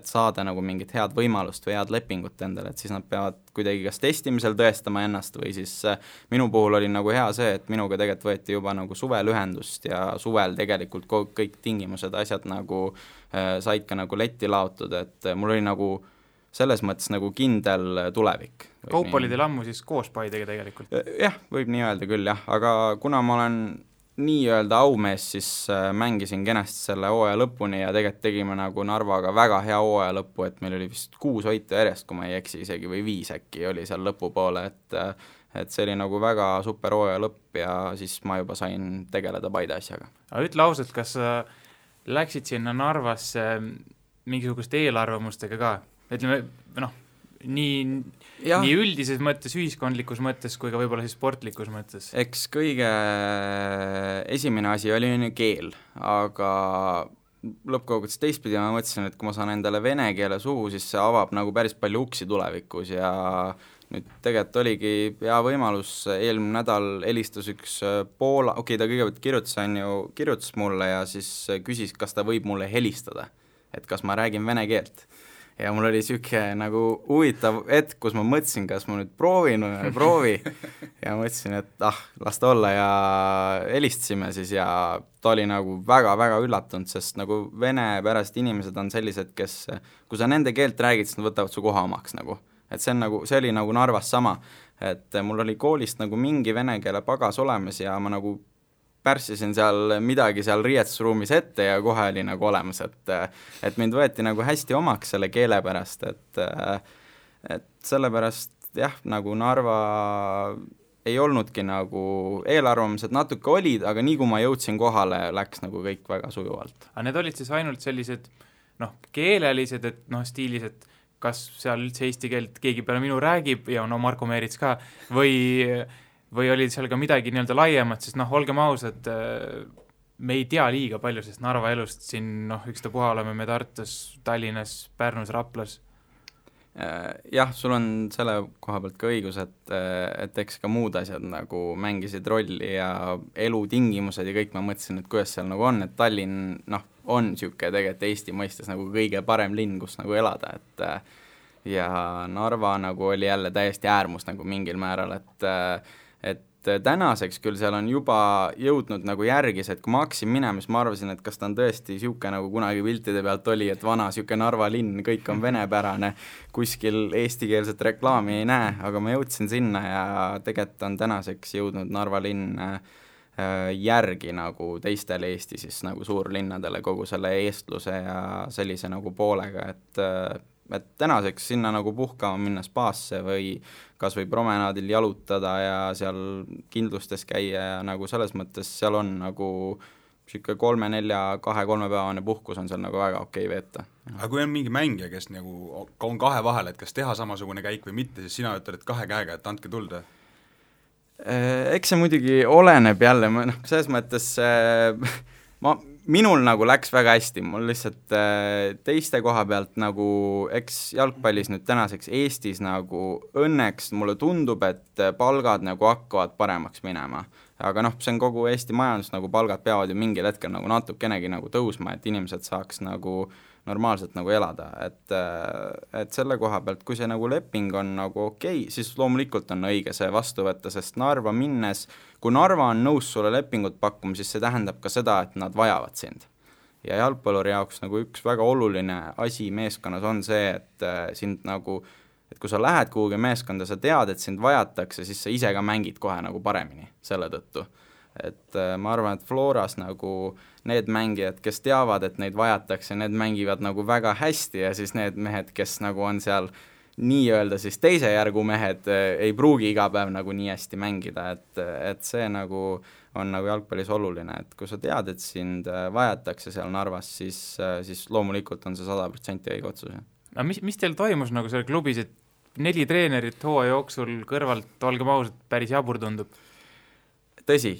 saada nagu mingit head võimalust või head lepingut endale, et siis nad peavad kuidagi kas testimisel tõestama ennast või siis minu puhul oli nagu hea see, et minuga tegelikult võeti juba nagu suvel ühendust ja suvel tegelikult kõik tingimused, asjad nagu said ka nagu letti laotud, et mul oli nagu selles mõttes nagu kindel tulevik. Kaup oli teil ammu siis koos Paidega tegelikult? Jah, võib nii öelda küll jah, aga kuna ma olen nii-öelda aumees, siis mängisin kenasti selle hooaja lõpuni ja tegelikult tegime nagu Narvaga väga hea hooaja lõppu, et meil oli vist 6 võitu järjest, kui ma ei eksi isegi, või 5 äkki oli seal lõpupoole, et see oli nagu väga super hooaja lõpp ja siis ma juba sain tegeleda Paide asjaga. Aga ütle ausalt, kas sa läksid sinna Narvasse mingisuguste eelarvamustega ka? Ütleme, nii üldises mõttes, ühiskondlikus mõttes kui ka võib-olla siis sportlikus mõttes? Eks kõige esimene asi oli keel, aga lõppkokkuvõttes teistpidi ma mõtlesin, et kui ma saan endale vene keele suhu, siis see avab nagu päris palju uksi tulevikus ja nüüd tegelikult oligi hea võimalus, eelmine nädal helistas üks Poola, ta kõigepealt kirjutas mulle ja siis küsis, kas ta võib mulle helistada, et kas ma räägin vene keelt. Ja mul oli siuke nagu huvitav hetk, kus ma mõtlesin, kas ma nüüd proovin või ei proovi ja mõtlesin, et las ta olla ja helistasime siis ja ta oli nagu väga-väga üllatunud, sest nagu venepärased inimesed on sellised, kes, kui sa nende keelt räägid, siis nad võtavad su koha omaks nagu. Et see oli nagu Narvas sama, et mul oli koolist nagu mingi vene keele pagas olemas ja ma nagu pärssisin seal midagi seal riietusruumis ette ja kohe oli nagu olemas, et mind võeti nagu hästi omaks selle keele pärast, et sellepärast jah, nagu Narva ei olnudki nagu eelarvamused natuke olid, aga nii kui ma jõudsin kohale, läks nagu kõik väga sujuvalt. Aga need olid siis ainult sellised keelelised, et stiilis, et kas seal üldse eesti keelt keegi peale minu räägib ja Marko Meerits ka või oli seal ka midagi nii-öelda laiemat, sest olgem ausad, me ei tea liiga palju, sest Narva elust siin ükstapuha oleme me Tartus, Tallinnas, Pärnus, Raplas. Jah, sul on selle koha pealt ka õigus, et eks ka muud asjad nagu mängisid rolli ja elutingimused ja kõik ma mõtlesin, et kuidas seal nagu on, et Tallinn on siuke tegelikult Eesti mõistes nagu kõige parem linn, kus nagu elada, ja Narva nagu oli jälle täiesti äärmus nagu mingil määral, et tänaseks küll seal on juba jõudnud nagu järgis, et kui ma hakkasin minema, siis ma arvasin, et kas ta on tõesti siuke nagu kunagi piltide pealt oli, et vana siuke Narva linn, kõik on venepärane, kuskil eestikeelset reklaami ei näe, aga ma jõudsin sinna ja tegelikult on tänaseks jõudnud Narva linn järgi nagu teistele Eesti siis nagu suurlinnadele kogu selle eestluse ja sellise nagu poolega, et tänaseks sinna nagu puhkama minna spaasse või kas või promenaadil jalutada ja seal kindlustes käia ja nagu selles mõttes seal on nagu siuke 3-4-2-3 päevane puhkus on seal nagu väga okei veeta. Aga kui on mingi mängija, kes nagu on kahe vahel, et kas teha samasugune käik või mitte, siis sina ütled kahe käega, et andke tulda? Eks see muidugi oleneb jälle, selles mõttes minul nagu läks väga hästi, mul lihtsalt teiste koha pealt nagu, eks jalgpallis nüüd tänaseks Eestis nagu õnneks mulle tundub, et palgad nagu hakkavad paremaks minema. Aga see on kogu Eesti majandus, nagu palgad peavad ju mingil hetkel nagu natukenegi nagu tõusma, et inimesed saaks nagu normaalselt nagu elada, et selle koha pealt, kui see nagu leping on nagu okei, siis loomulikult on õige see vastu võtta, sest Narva minnes, kui Narva on nõus sulle lepingut pakkuma, siis see tähendab ka seda, et nad vajavad sind. ja jalgpalluri jaoks nagu üks väga oluline asi meeskonnas on see, et sind nagu, et kui sa lähed kuhugi meeskonda, sa tead, et sind vajatakse, siis sa ise ka mängid kohe nagu paremini selle tõttu. Et ma arvan, et Floras nagu need mängijad, kes teavad, et neid vajatakse, need mängivad nagu väga hästi ja siis need mehed, kes nagu on seal nii-öelda siis teise järgu mehed, ei pruugi iga päev nagu nii hästi mängida, et see nagu on nagu jalgpallis oluline, et kui sa tead, et sind vajatakse seal Narvas, siis loomulikult on see 100% õige otsus. No mis teil toimus nagu seal klubis, et 4 treenerit hooaja jooksul kõrvalt, olgem ausalt, päris jabur tundub? Tõsi,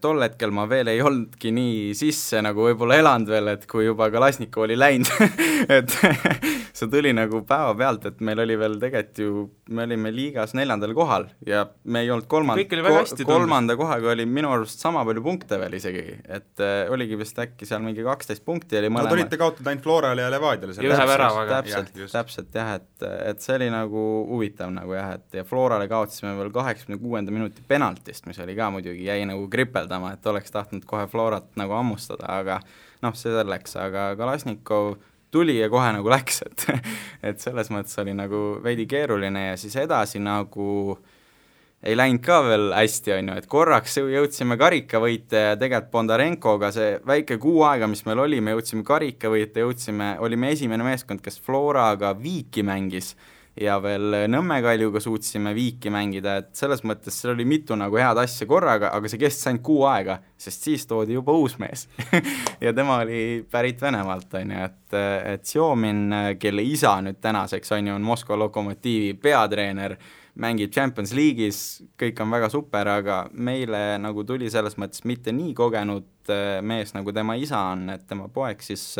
tol hetkel ma veel ei olnudki nii sisse nagu võib-olla elanud veel, et kui juba Kalasnikov oli läinud et see tuli nagu päeva pealt, et meil oli veel tegelikult ju, me olime liigas 4. kohal ja me ei olnud kolmanda kohaga oli minu arust sama palju punkte veel isegi, et oligi vist äkki seal mingi 12 punkti oli mõlema. No te olite kaotud ainult Florale ja Levadiale. Ühe väravaga. Täpselt jah, et see oli nagu huvitav nagu jah, et ja Florale kaotasime veel 86. minuti penaltist, mis oli ka muidugi jäi nagu kripeldama, et oleks tahtnud kohe Florat nagu ammustada, aga noh, see selleks, aga Kalasnikov tuli ja kohe nagu läks, et selles mõttes oli nagu veidi keeruline ja siis edasi nagu ei läinud ka veel hästi, on ju, et korraks jõudsime karikavõite ja tegelikult Bondarenkoga see väike kuu aega, mis meil oli, me jõudsime karikavõite, olime esimene meeskond, kes Floraga viiki mängis ja veel Nõmme Kaljuga suutsime viiki mängida, et selles mõttes seal oli mitu nagu head asja korraga, aga see kestis ainult kuu aega, sest siis toodi juba uus mees ja tema oli pärit Venemaalt, on ju, et Sjomin, kelle isa nüüd tänaseks on ju, on Moskva Lokomotiivi peatreener, mängib Champions League'is, kõik on väga super, aga meile nagu tuli selles mõttes mitte nii kogenud mees, nagu tema isa on, et tema poeg siis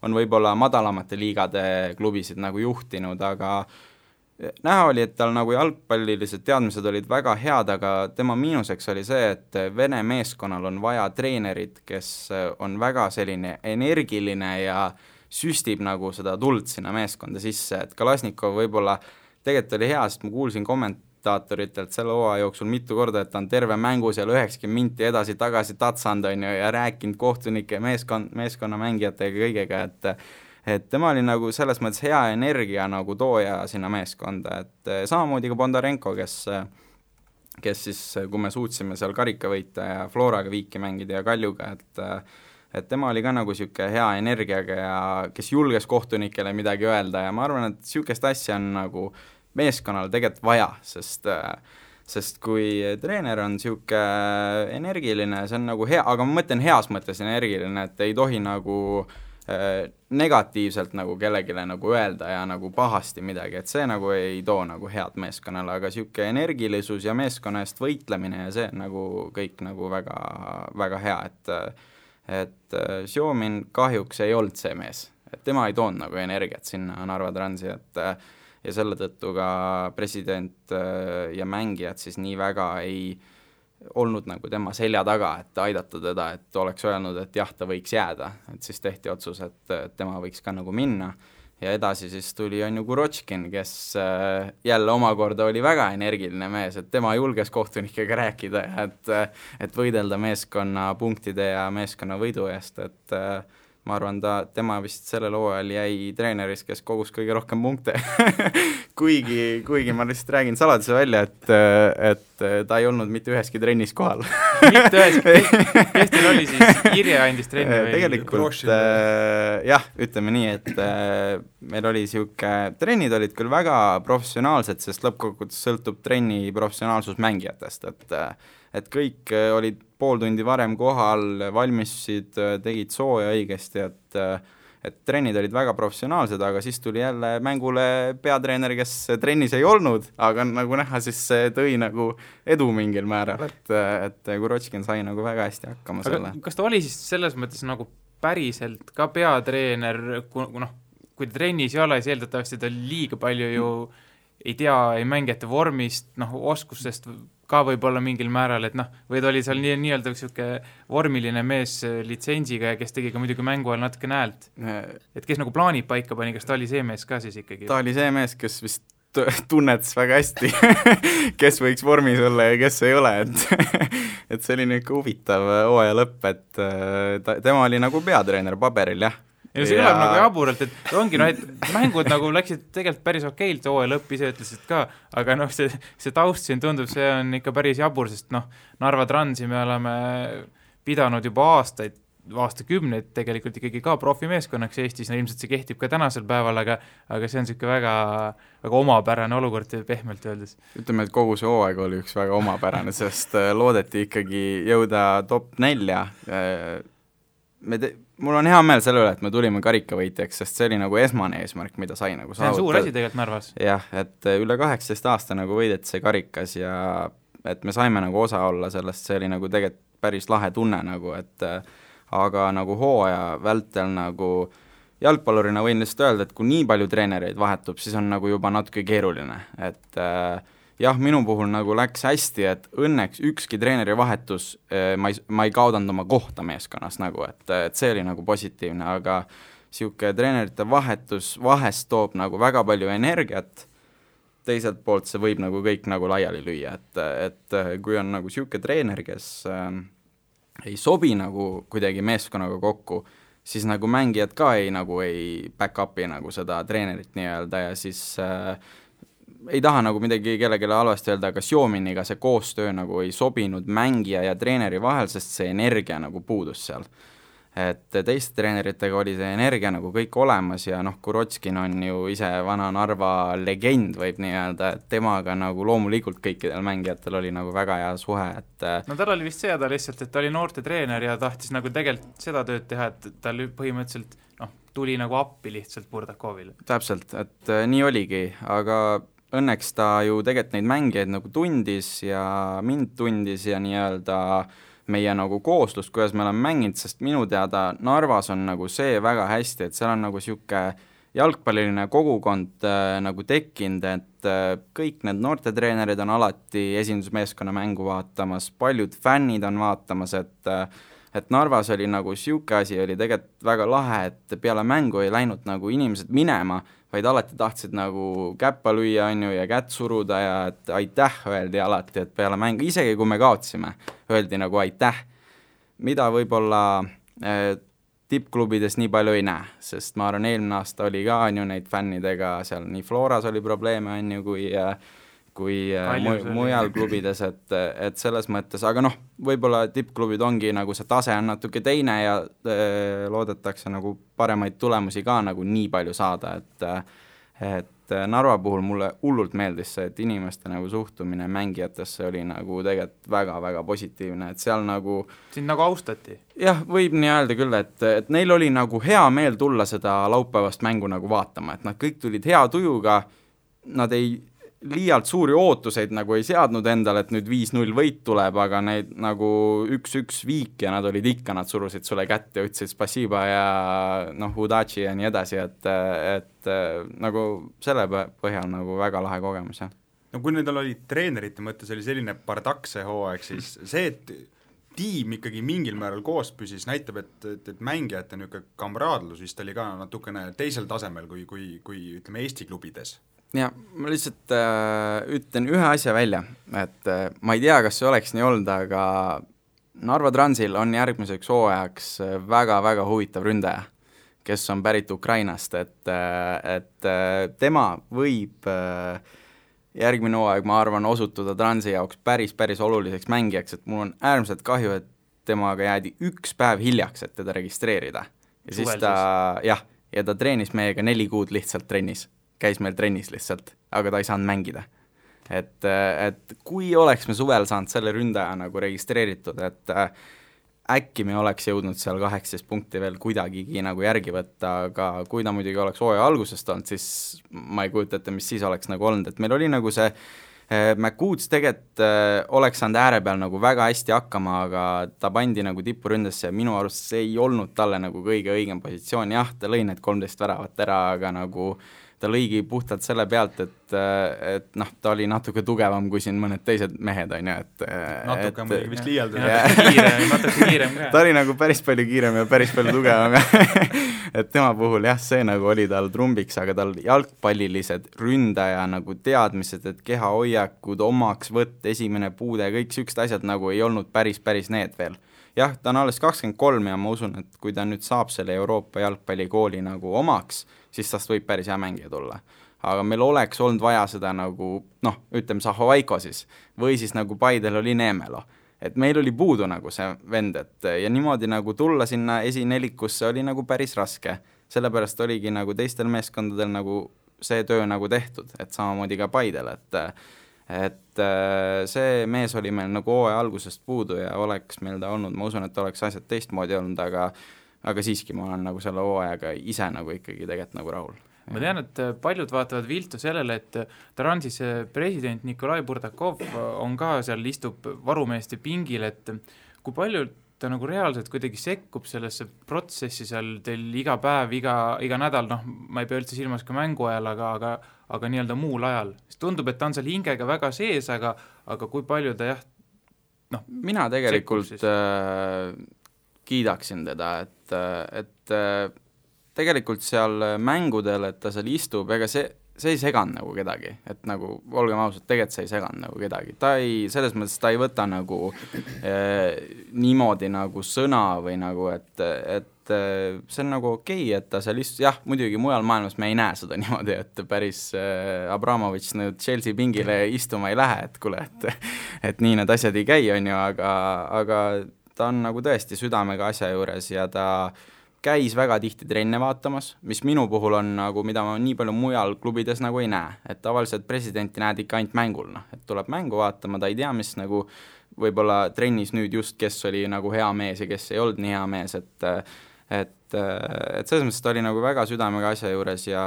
on võib-olla madalamate liigade klubisid nagu juhtinud, aga näha oli, et tal nagu jalgpallilised teadmised olid väga head, aga tema miinuseks oli see, et Vene meeskonnal on vaja treenerit, kes on väga selline energiline ja süstib nagu seda tuld sinna meeskonda sisse, et Kalasnikov võib-olla tegelikult oli hea, sest ma kuulsin kommentaatoritelt selle hooaja jooksul mitu korda, et ta on terve mängu seal 90 minti edasi-tagasi tatsanud on ju, ja rääkinud kohtunike meeskonna mängijatega kõigega, et tema oli nagu selles mõttes hea energia nagu tooja sinna meeskonda, et samamoodi ka Bondarenko, kes siis, kui me suutsime seal karika võita ja Floraga viiki mängida ja Kaljuga, et tema oli ka nagu niisugune hea energiaga ja kes julges kohtunikele midagi öelda ja ma arvan, et niisugust asja on nagu meeskonnal tegelikult vaja, sest kui treener on niisugune energiline, see on nagu hea, aga ma mõtlen heas mõttes energiline, et ei tohi nagu negatiivselt nagu kellegile nagu öelda ja nagu pahasti midagi, et see nagu ei too nagu head meeskonnale, aga niisugune energilisus ja meeskonna eest võitlemine ja see on nagu kõik nagu väga, väga hea, et Sjomin kahjuks ei olnud see mees, et tema ei toonud nagu energiat sinna Narva Transi, ja selle tõttu ka president ja mängijad siis nii väga ei olnud nagu tema selja taga, et aidata teda, et oleks öelnud, et jah, ta võiks jääda, et siis tehti otsus, et tema võiks ka nagu minna ja edasi siis tuli on ju Kurotškin, kes jälle omakorda oli väga energiline mees, et tema julges kohtunikega rääkida ja et võidelda meeskonna punktide ja meeskonna võidu eest, et ma arvan, tema vist sellel hooajal jäi treeneris, kes kogus kõige rohkem punkte kuigi ma lihtsalt räägin saladuse välja, et ta ei olnud mitte üheski trennis kohal mitte üheski, kes teil oli siis, Irje andis trenni või? Tegelikult jah, ütleme nii, et meil oli niisugune, trennid olid küll väga professionaalsed, sest lõppkokkuvõttes sõltub trenni professionaalsus mängijatest, et kõik olid pool tundi varem kohal, valmistusid, tegid sooja õigesti, et trennid olid väga professionaalsed, aga siis tuli jälle mängule peatreener, kes trennis ei olnud, aga nagu näha, siis see tõi nagu edu mingil määral, et Kurotškin sai nagu väga hästi hakkama selle. Kas ta oli siis selles mõttes nagu päriselt ka peatreener, kui ta trennis ei ole, siis eeldatavasti ta liiga palju ju ei tea, ei mängijate vormist, oskustest ka võib-olla mingil määral, et või ta oli seal nii-öelda niisugune vormiline mees litsenziga ja kes tegi ka muidugi mängu ajal natuke häält. Et kes nagu plaanid paika pani, kas ta oli see mees ka siis ikkagi? Ta oli see mees, kes vist tunnetas väga hästi, kes võiks vormis olla ja kes ei ole, et see oli niisugune huvitav hooaja lõpp, et tema oli nagu peatreener paberil, jah. Ja see kõlab nagu jaburalt, et ongi, et mängud nagu läksid tegelikult päris okeilt, hooaja lõpp ise ütlesid ka, aga see taust siin tundub, see on ikka päris jabur, sest Narva Transi me oleme pidanud juba aastakümneid tegelikult ikkagi ka profimeeskonnaks Eestis, ilmselt see kehtib ka tänasel päeval, aga see on siuke väga, väga omapärane olukord pehmelt öeldes. Ütleme, et kogu see hooaeg oli üks väga omapärane, sest loodeti ikkagi jõuda top 4. Mul on hea meel selle üle, et me tulime karikavõitjaks, sest see oli nagu esmane eesmärk, mida sai nagu saavutada. See on suur asi tegelikult Narvas. Jah, et üle 18 aasta nagu võideti see karikas ja et me saime nagu osa olla sellest, see oli nagu tegelikult päris lahe tunne nagu, et aga nagu hooaja vältel nagu jalgpallurina võin lihtsalt öelda, et kui nii palju treenereid vahetub, siis on nagu juba natuke keeruline, et jah, minu puhul nagu läks hästi, et õnneks ükski treeneri vahetus, ma ei kaudanud oma kohta meeskonnas nagu, et see oli nagu positiivne, aga siuke treenerite vahetus vahest toob nagu väga palju energiat, teiselt poolt see võib nagu kõik nagu laiali lüüa, et kui on nagu siuke treener, kes ei sobi nagu kuidagi meeskonnaga kokku, siis nagu mängijad ka ei back up'i nagu seda treenerit nii-öelda ja siis ei taha nagu midagi kellelegi halvasti öelda, aga Xiominiga see koostöö nagu ei sobinud mängija ja treeneri vahel, sest see energia nagu puudus seal. Et teiste treeneritega oli see energia nagu kõik olemas ja Kurotskin on ju ise vana Narva legend, võib nii öelda, et temaga nagu loomulikult kõikidel mängijatel oli nagu väga hea suhe, et tal oli vist see lihtsalt, et ta oli noorte treener ja tahtis nagu tegelikult seda tööd teha, et tal põhimõtteliselt tuli nagu appi lihtsalt Burdakovile. Täpselt, et nii oligi, aga õnneks ta ju tegelikult neid mängijaid nagu tundis ja mind tundis ja nii-öelda meie nagu kooslust, kuidas me oleme mänginud, sest minu teada Narvas on nagu see väga hästi, et seal on nagu siuke jalgpalliline kogukond nagu tekkinud, et kõik need noortetreenerid on alati esindusmeeskonna mängu vaatamas, paljud fännid on vaatamas, et Narvas oli nagu siuke asi, oli tegelikult väga lahe, et peale mängu ei läinud nagu inimesed minema, vaid alati tahtsid nagu käppa lüüa ja kätt suruda ja et aitäh öeldi alati, et peale mängu, isegi kui me kaotsime, öeldi nagu aitäh, mida võib-olla tippklubides nii palju ei näe, sest ma arvan, eelmine aasta oli ka neid fännidega, seal nii Floras oli probleeme kui mujal klubides, et selles mõttes, aga võib-olla tippklubid ongi nagu see tase on natuke teine ja loodetakse nagu paremaid tulemusi ka nagu nii palju saada, et Narva puhul mulle hullult meeldis see, et inimeste nagu suhtumine mängijatesse oli nagu tegelikult väga-väga positiivne, et seal nagu sind nagu austati? Jah, võib nii öelda küll, et neil oli nagu hea meel tulla seda laupäevast mängu nagu vaatama, et nad kõik tulid hea tujuga, nad ei liialt suuri ootuseid nagu ei seadnud endale, et nüüd 5-0 võit tuleb, aga neid nagu 1-1 viik ja nad olid ikka, nad surusid sulle kätte ja ütlesid spasiba ja udachi ja nii edasi, et nagu selle põhjal nagu väga lahe kogemus, jah. Kui nendel oli treenerite mõttes oli selline bardakse hooaeg, siis see, et tiim ikkagi mingil määral koos püsis, näitab, et mängijate niisugune kamraadlus vist oli ka natukene teisel tasemel kui ütleme Eesti klubides. Ja ma lihtsalt ütlen ühe asja välja, et ma ei tea, kas see oleks nii olnud, aga Narva Transil on järgmiseks hooajaks väga-väga huvitav ründaja, kes on pärit Ukrainast, et tema võib järgmine hooaeg, ma arvan, osutuda Transi jaoks päris oluliseks mängijaks, et mul on äärmiselt kahju, et temaga jäädi üks päev hiljaks, et teda registreerida. Ja siis ta treenis meiega 4 kuud lihtsalt trennis. Käis meil trennis lihtsalt, aga ta ei saanud mängida. Et kui oleks me suvel saanud selle ründaja nagu registreeritud, et äkki me oleks jõudnud seal 18 punkti veel kuidagigi nagu järgi võtta, aga kui ta muidugi oleks hooaja algusest olnud, siis ma ei kujuta ette, mis siis oleks nagu olnud, et meil oli nagu see McCoots tegelikult oleks saanud ääre peal nagu väga hästi hakkama, aga ta pandi nagu tippuründesse ja minu arust see ei olnud talle nagu kõige õigem positsioon, jah, ta lõi need 13 väravat ära, aga nagu ta lõigi puhtalt selle pealt, et noh, ta oli natuke tugevam kui siin mõned teised mehed, on ju, et natuke muidugi vist liialdus. Natuke kiirem ka. Ta oli nagu päris palju kiirem ja päris palju tugevam et tema puhul jah, see nagu oli tal trumbiks, aga tal jalgpallilised ründaja nagu teadmised, et kehahoiakud, omaksvõtt, esimene puude, kõik siuksed asjad nagu ei olnud päris need veel. Jah, ta on alles 23 ja ma usun, et kui ta nüüd saab selle Euroopa jalgpallikooli nagu omaks, siis tast võib päris hea mängija tulla. Aga meil oleks olnud vaja seda nagu, noh, ütleme Zahovaiko siis, või siis nagu Paidel oli Neemelo. Et meil oli puudu nagu see vend, et ja niimoodi nagu tulla sinna esinelikusse oli nagu päris raske. Sellepärast oligi nagu teistel meeskondadel nagu see töö nagu tehtud, et samamoodi ka Paidel, et see mees oli meil nagu hooaja algusest puudu ja oleks meil ta olnud, ma usun, et oleks asjad teistmoodi olnud, aga siiski ma olen nagu selle hooajaga ise nagu ikkagi tegelikult nagu rahul. Ma tean, et paljud vaatavad viltu sellele, et Transis president Nikolai Burdakov on ka seal, istub varumeeste pingil, et kui palju ta nagu reaalselt kuidagi sekkub sellesse protsessi seal teil iga päev, iga nädal, noh, ma ei pea üldse silmas ka mängu ajal, aga nii-öelda muul ajal. Tundub, et ta on seal hingega väga sees, aga kui palju ta jah, noh, mina tegelikult kiidaksin teda, et tegelikult seal mängudel, et ta seal istub, ega see ei seganud nagu kedagi, et nagu olgem ausad, tegelikult see ei seganud nagu kedagi, ta ei, selles mõttes ta ei võta nagu niimoodi nagu sõna või nagu, et see on nagu okei, et ta seal jah, muidugi mujal maailmas me ei näe seda niimoodi, et päris Abramovitš nüüd Chelsea pingile istuma ei lähe, et kuule, et nii need asjad ei käi, on ju, aga ta on nagu tõesti südamega asja juures ja ta käis väga tihti trenne vaatamas, mis minu puhul on nagu, mida ma nii palju mujal klubides nagu ei näe, et tavaliselt presidenti näed ikka ainult mängul, noh, et tuleb mängu vaatama, ta ei tea, mis nagu võib-olla trennis nüüd just, kes oli nagu hea mees ja kes ei olnud nii hea mees, et selles mõttes ta oli nagu väga südamega asja juures ja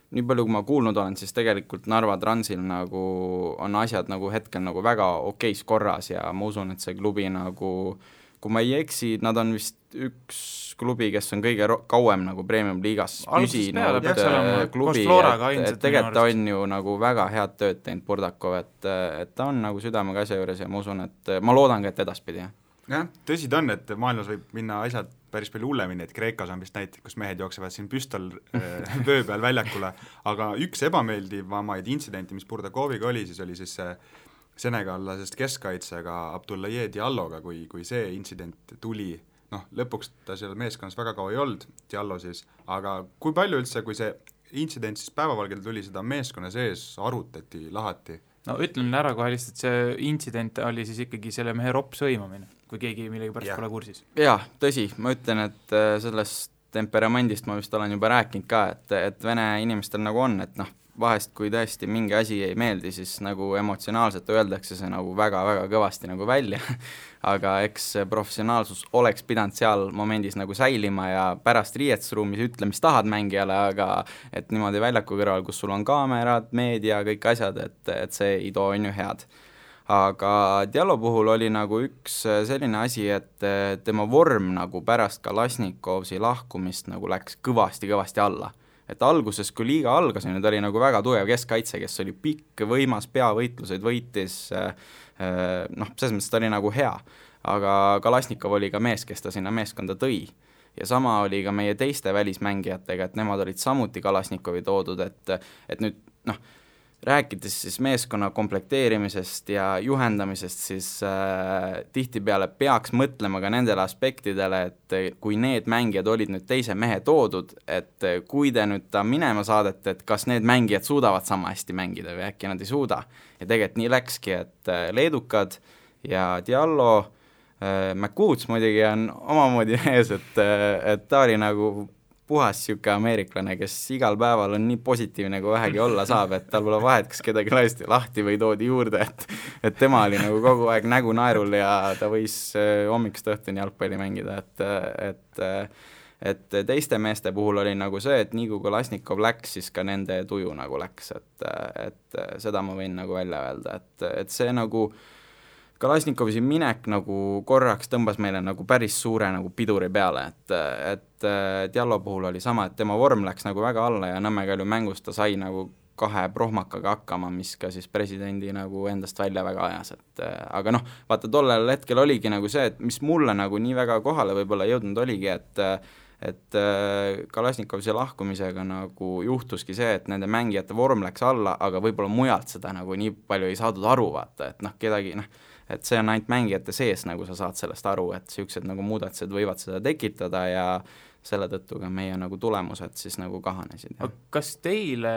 nii palju, kui ma kuulnud olen, siis tegelikult Narva Transil nagu on asjad nagu hetkel nagu väga okeis korras ja ma usun, et see klubi nagu, kui ma ei eksi, nad on vist üks klubi, kes on kõige kauem nagu Premium liigas püsinud klubi, et tegelikult on ju nagu väga head tööd teinud Burdakov, et ta on nagu südamega asja juures ja ma usun, et ma loodan ka, et edaspidi. Jah, tõsi ta on, et maailmas võib minna asjad päris palju hullemini, et Kreekas on vist näiteid, kus mehed jooksevad siin püstol vöö peal väljakule, aga üks ebameeldivamaid intsidenti, mis Burdakoviga oli, siis oli siis senegallasest keskkaitsega Abdoulaye Dialloga, kui see intsident tuli, noh, lõpuks ta seal meeskonnas väga kaua ei olnud, Diallo siis, aga kui palju üldse, kui see intsident siis päevavalgel tuli, seda meeskonna sees arutati, lahati? No ütlen ära kohe lihtsalt, see intsident oli siis ikkagi selle mehe ropsõimamine, kui keegi millegi pärast pole kursis. Jaa, tõsi, ma ütlen, et sellest temperamendist ma vist olen juba rääkinud ka, et vene inimestel nagu on, et noh, vahest kui tõesti mingi asi ei meeldi, siis nagu emotsionaalselt öeldakse see nagu väga-väga kõvasti nagu välja, aga eks professionaalsus oleks pidanud seal momendis nagu säilima ja pärast riietusruumis ütle, mis tahad mängijale, aga et niimoodi väljaku kõrval, kus sul on kaamerad, meedia, kõik asjad, et see ei too on ju head. Aga Diallo puhul oli nagu üks selline asi, et tema vorm nagu pärast Kalasnikovsi lahkumist nagu läks kõvasti alla. Et alguses, kui liiga algas, nüüd oli nagu väga tugev keskkaitse, kes oli pikk, võimas, peavõitluseid võitis, noh, selles mõttes ta oli nagu hea, aga Kalasnikov oli ka mees, kes ta sinna meeskonda tõi. Ja sama oli ka meie teiste välismängijatega, et nemad olid samuti Kalasnikovi toodud, et nüüd, noh, rääkides siis meeskonna komplekteerimisest ja juhendamisest, siis tihtipeale peaks mõtlema ka nendele aspektidele, et kui need mängijad olid nüüd teise mehe toodud, et kui te nüüd ta minema saadete, et kas need mängijad suudavad sama hästi mängida või äkki nad ei suuda. Ja tegelikult nii läkski, et leedukad ja Diallo, McCoots muidugi on omamoodi ees, et ta oli nagu puhas siuke ameeriklane, kes igal päeval on nii positiivne, kui vähegi olla saab, et tal pole vahet, kas kedagi lasti lahti või toodi juurde, et tema oli nagu kogu aeg nägu naerul ja ta võis hommikust õhtuni jalgpalli mängida, et teiste meeste puhul oli nagu see, et nii kui Kalasnikov läks, siis ka nende tuju nagu läks, et seda ma võin nagu välja öelda, et see nagu Kalašnikovi minek nagu korraks tõmbas meile nagu päris suure nagu piduri peale, et Diallo puhul oli sama, et tema vorm läks nagu väga alla ja Nõmme Kalju mängus ta sai nagu 2 prohmakaga hakkama, mis ka siis presidendi nagu endast välja väga ajas, et aga noh, vaata tollel hetkel oligi nagu see, et mis mulle nagu nii väga kohale võib-olla jõudnud oligi, et Kalašnikovsi lahkumisega nagu juhtuski see, et nende mängijate vorm läks alla, aga võib-olla mujalt seda nagu nii palju ei saadud aru, vaata, et noh, kedagi noh, et see on ainult mängijate sees, nagu sa saad sellest aru, et niisugused nagu muudatused võivad seda tekitada ja selle tõttu ka meie nagu tulemused siis nagu kahanesid. Kas teile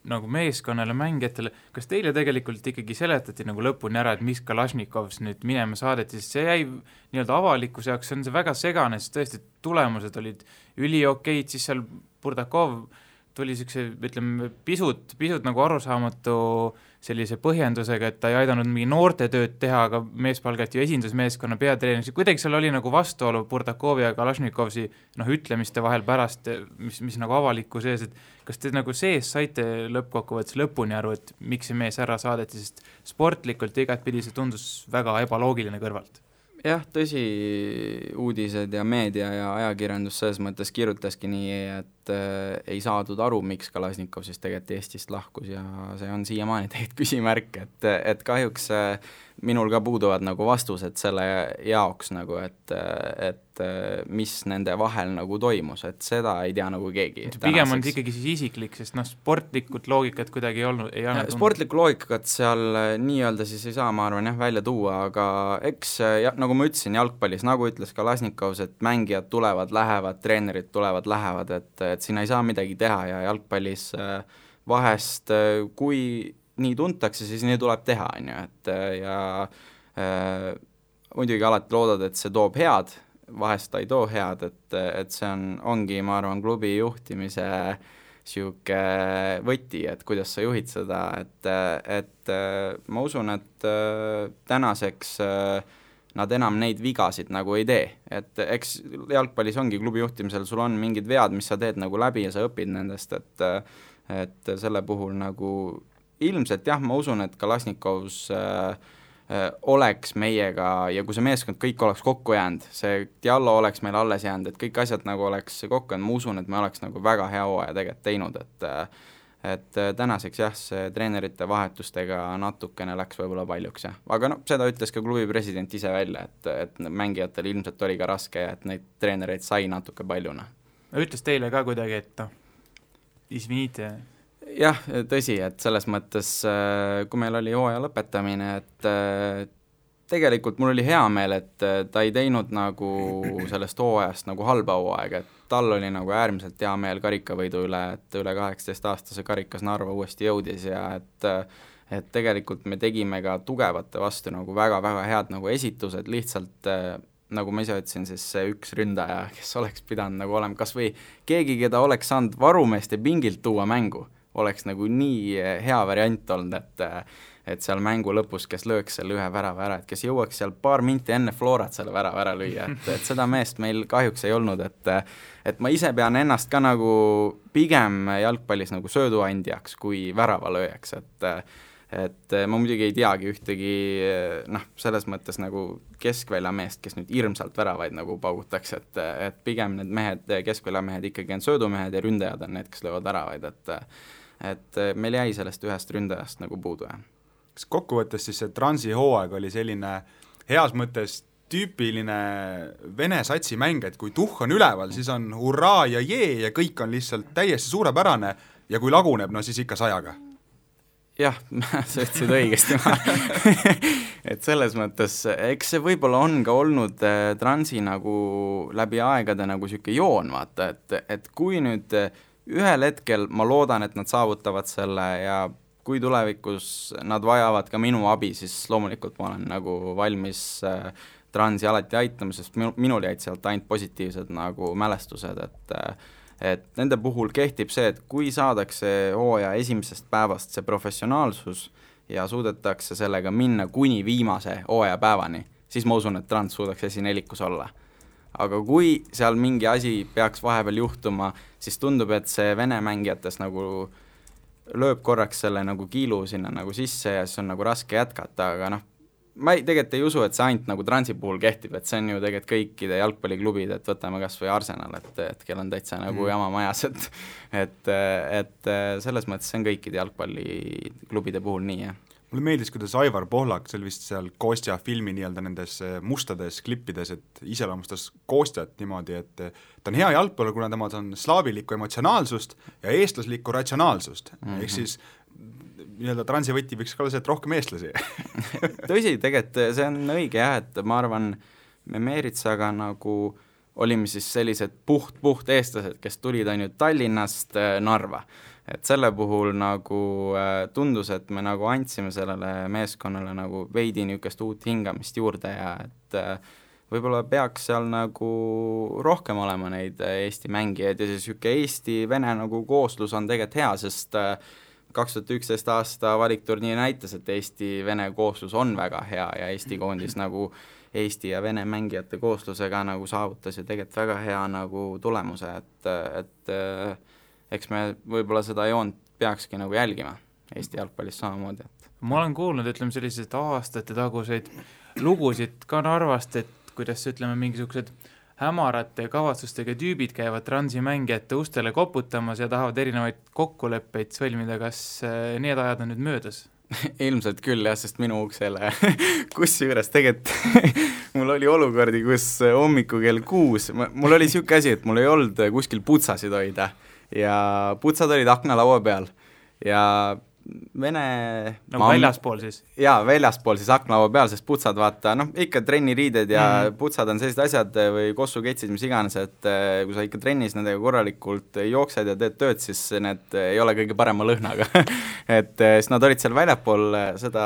nagu meeskonnale, mängijatele, kas teile tegelikult ikkagi seletati nagu lõpuni ära, et mis Kalašnikovs nüüd minema saadeti, sest see jäi nii-öelda avalikkuse jaoks, on see väga segane, sest tõesti tulemused olid üliokeid, siis seal Burdakov tuli niisuguse, ütleme, pisut nagu arusaamatu sellise põhjendusega, et ta ei aidanud mingi noorte tööd teha, aga mees palgati ju esindusmeeskonna peatreeneriks, kuidagi seal oli nagu vastuolu Burdakovi ja Kalašnikovsi ütlemiste vahel pärast, mis nagu avaliku sees, et kas te nagu sees saite lõppkokkuvõttes lõpuni aru, et miks see mees ära saadeti, sest sportlikult igatpidi see tundus väga ebaloogiline kõrvalt? Jah, tõsi, uudised ja meedia ja ajakirjandus selles mõttes kirjutaski nii, et ei saadud aru, miks Kalašnikov siis tegelikult Eestist lahkus ja see on siiamaani tegelikult küsimärk, et kahjuks minul ka puuduvad nagu vastused selle jaoks nagu, et mis nende vahel nagu toimus, et seda ei tea nagu keegi. Pigem on ikkagi siis isiklik, sest sportlikult loogikat kuidagi ei olnud. Sportlikku loogikat seal nii-öelda siis ei saa, ma arvan, välja tuua, aga eks nagu ma ütlesin jalgpallis, nagu ütles Kalašnikovs, et mängijad tulevad, lähevad, treenerid tulevad, lähevad, et siin ei saa midagi teha ja jalgpallis vahest, kui nii tuntakse, siis nii tuleb teha, on ju, et ja muidugi alati loodad, et see toob head, vahest ta ei too head, et see ongi, ma arvan, klubi juhtimise siuke võti, et kuidas sa juhid seda, et ma usun, et tänaseks nad enam neid vigasid nagu ei tee, et eks jalgpallis ongi klubi juhtimisel, sul on mingid vead, mis sa teed nagu läbi ja sa õpid nendest, et selle puhul nagu ilmselt jah, ma usun, et Kalašnikovs oleks meiega ja kui see meeskond kõik oleks kokku jäänud, see Diallo oleks meil alles jäänud, et kõik asjad nagu oleks kokku jäänud, ma usun, et me oleks nagu väga hea hooaja tegelikult teinud, et tänaseks jah, see treenerite vahetustega natukene läks võib-olla paljuks jah, aga no seda ütles ka klubi president ise välja, et mängijatel ilmselt oli ka raske ja et neid treenereid sai natuke paljuna. Ütles teile ka kuidagi, et isvinite? Jah, tõsi, et selles mõttes, kui meil oli hooaja lõpetamine, et tegelikult mul oli hea meel, et ta ei teinud nagu sellest hooajast nagu halba hooaega, et tal oli nagu äärmiselt hea meel karikavõidu üle, et üle 18-aastase karikas Narva uuesti jõudis ja et tegelikult me tegime ka tugevate vastu nagu väga-väga head nagu esitused, lihtsalt nagu ma ise ütlesin, siis see üks ründaja, kes oleks pidanud nagu olema kas või keegi, keda oleks saanud varumeeste pingilt tuua mängu, oleks nagu nii hea variant olnud, et seal mängu lõpus, kes lööks selle ühe värava ära, et kes jõuaks seal paar minti enne Florat selle värava ära lüüa, et seda meest meil kahjuks ei olnud, et ma ise pean ennast ka nagu pigem jalgpallis nagu sööduandjaks kui väravalööjaks, et ma muidugi ei teagi ühtegi selles mõttes nagu keskväljameest, kes nüüd hirmsalt väravaid nagu paugutaks, et pigem need mehed, keskväljamehed ikkagi on söödumehed ja ründajad on need, kes löövad väravaid, et meil jäi sellest ühest ründajast nagu puudu. Kas kokkuvõttes siis see Transi hooaeg oli selline heas mõttes tüüpiline vene satsi mäng, et kui tuhh on üleval, siis on hurraa ja jee ja kõik on lihtsalt täiesti suurepärane ja kui laguneb, no siis ikka 100-ga? Jah, sa ütlesid õigesti et selles mõttes, eks see võib-olla on ka olnud Transi nagu läbi aegade nagu siuke joon, vaata, et kui nüüd ühel hetkel ma loodan, et nad saavutavad selle ja kui tulevikus nad vajavad ka minu abi, siis loomulikult ma olen nagu valmis Transi alati aitama, sest minul jäid sealt ainult positiivsed nagu mälestused, et nende puhul kehtib see, et kui saadakse hooaja esimesest päevast see professionaalsus ja suudetakse sellega minna kuni viimase hooaja päevani, siis ma usun, et Trans suudaks esinelikus olla. Aga kui seal mingi asi peaks vahepeal juhtuma, siis tundub, et see vene mängijates nagu lööb korraks selle nagu kiilu sinna nagu sisse ja siis on nagu raske jätkata, aga ma tegelikult ei usu, et see ainult nagu Transi puhul kehtib, et see on ju tegelikult kõikide jalgpalliklubid, et võtame kas või Arsenal, et kell on täitsa nagu jama majas, et selles mõttes see on kõikide jalgpalliklubide puhul nii, jah. Mulle meeldis, kuidas Aivar Pohlak, see oli vist seal Kostja filmi nii-öelda nendes mustades klippides, et iseloomustas Kostjat niimoodi, et ta on hea jalgpallur, kuna tema on slaavilikku emotsionaalsust ja eestlaslikku ratsionaalsust, ehk siis nii-öelda Transi võti võiks ka olla see, et rohkem eestlasi. Tõsi, tegelikult see on õige jah, et ma arvan, me Meeritsaga nagu olime siis sellised puht eestlased, kes tulid ainult Tallinnast Narva. Et selle puhul nagu tundus, et me nagu andsime sellele meeskonnale nagu veidi niisugust uut hingamist juurde ja et võib-olla peaks seal nagu rohkem olema neid Eesti mängijaid ja siis niisugune Eesti-Vene nagu kooslus on tegelikult hea, sest 2011 aasta valikturniir näitas, et Eesti-Vene kooslus on väga hea ja Eesti koondis nagu Eesti ja Vene mängijate kooslusega nagu saavutas ja tegelikult väga hea nagu tulemuse, et eks me võib-olla seda joont peakski nagu jälgima Eesti jalgpallis samamoodi. Ma olen kuulnud, ütleme sellised aastate taguseid lugusid ka Narvast, et kuidas ütleme mingisugused hämarate kavatsustega tüübid käivad Transi mängijate ustele koputamas ja tahavad erinevaid kokkuleppeid sõlmida, kas need ajad on nüüd möödas? Ilmselt küll jah, sest minu uksele kusjuures tegelikult mul oli olukordi, kus hommiku kell 6, mul oli siuke asi, et mul ei olnud kuskil putsasid hoida ja putsad olid aknalaua peal ja Vene nagu väljaspool siis? Jaa, väljaspool siis aknalaua peal, sest putsad vaata, ikka trenniriided ja putsad on sellised asjad või kossuketsid, mis iganes, et kui sa ikka trennis nendega korralikult jooksed ja teed tööd, siis need ei ole kõige parema lõhnaga et siis nad olid seal väljapool seda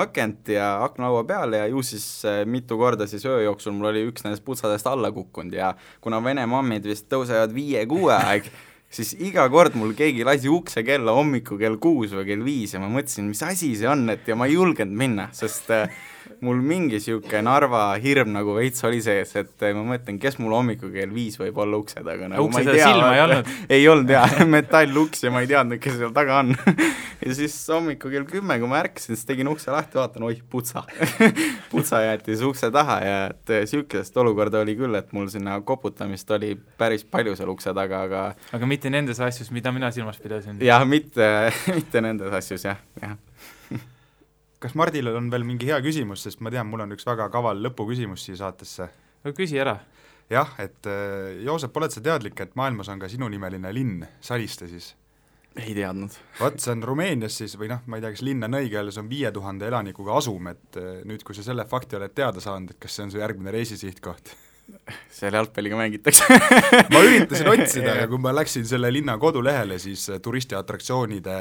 akent ja aknalaua peal ja ju siis mitu korda siis öö jooksul mul oli üks nendest putsadest alla kukkunud ja kuna Vene mammid vist tõusevad 5-6 aeg, siis iga kord mul keegi lasi ukse kella hommiku kell 6 või kell 5 ja ma mõtlesin, mis asi see on, et ja ma ei julgenud minna, sest mul mingi siuke Narva hirm nagu veits oli sees, et ma mõtlen, kes mul hommiku kell 5 võib olla ukse taga nagu, ukse seda silma ei olnud? Ei olnud jah, metalluks ja ma ei teadnud, kes seal taga on ja siis hommiku kell 10, kui ma ärkasin, siis tegin ukse lahti, vaatan, oih, putsa jäeti siis ukse taha ja et siukest olukorda oli küll, et mul sinna koputamist oli päris palju seal ukse taga, aga mitte nendes asjus, mida mina silmas pidasin? jah, mitte nendes asjus, jah. Kas Mardil on veel mingi hea küsimus, sest ma tean, mul on üks väga kaval lõpuküsimus siia saatesse. Küsi ära. Jah, et Joosep, oled sa teadlik, et maailmas on ka sinunimeline linn, Saliste siis? Ei teadnud. Vaat see on Rumeenias siis, või ma ei tea, kas linn on õige, see on 5000 elanikuga asum, et nüüd, kui sa selle fakti oled teada saanud, et kas see on su järgmine reisisihtkoht? Seal jalgpalliga mängitakse ma üritasin otsida, aga kui ma läksin selle linna kodulehele, siis turistiatraktsioonide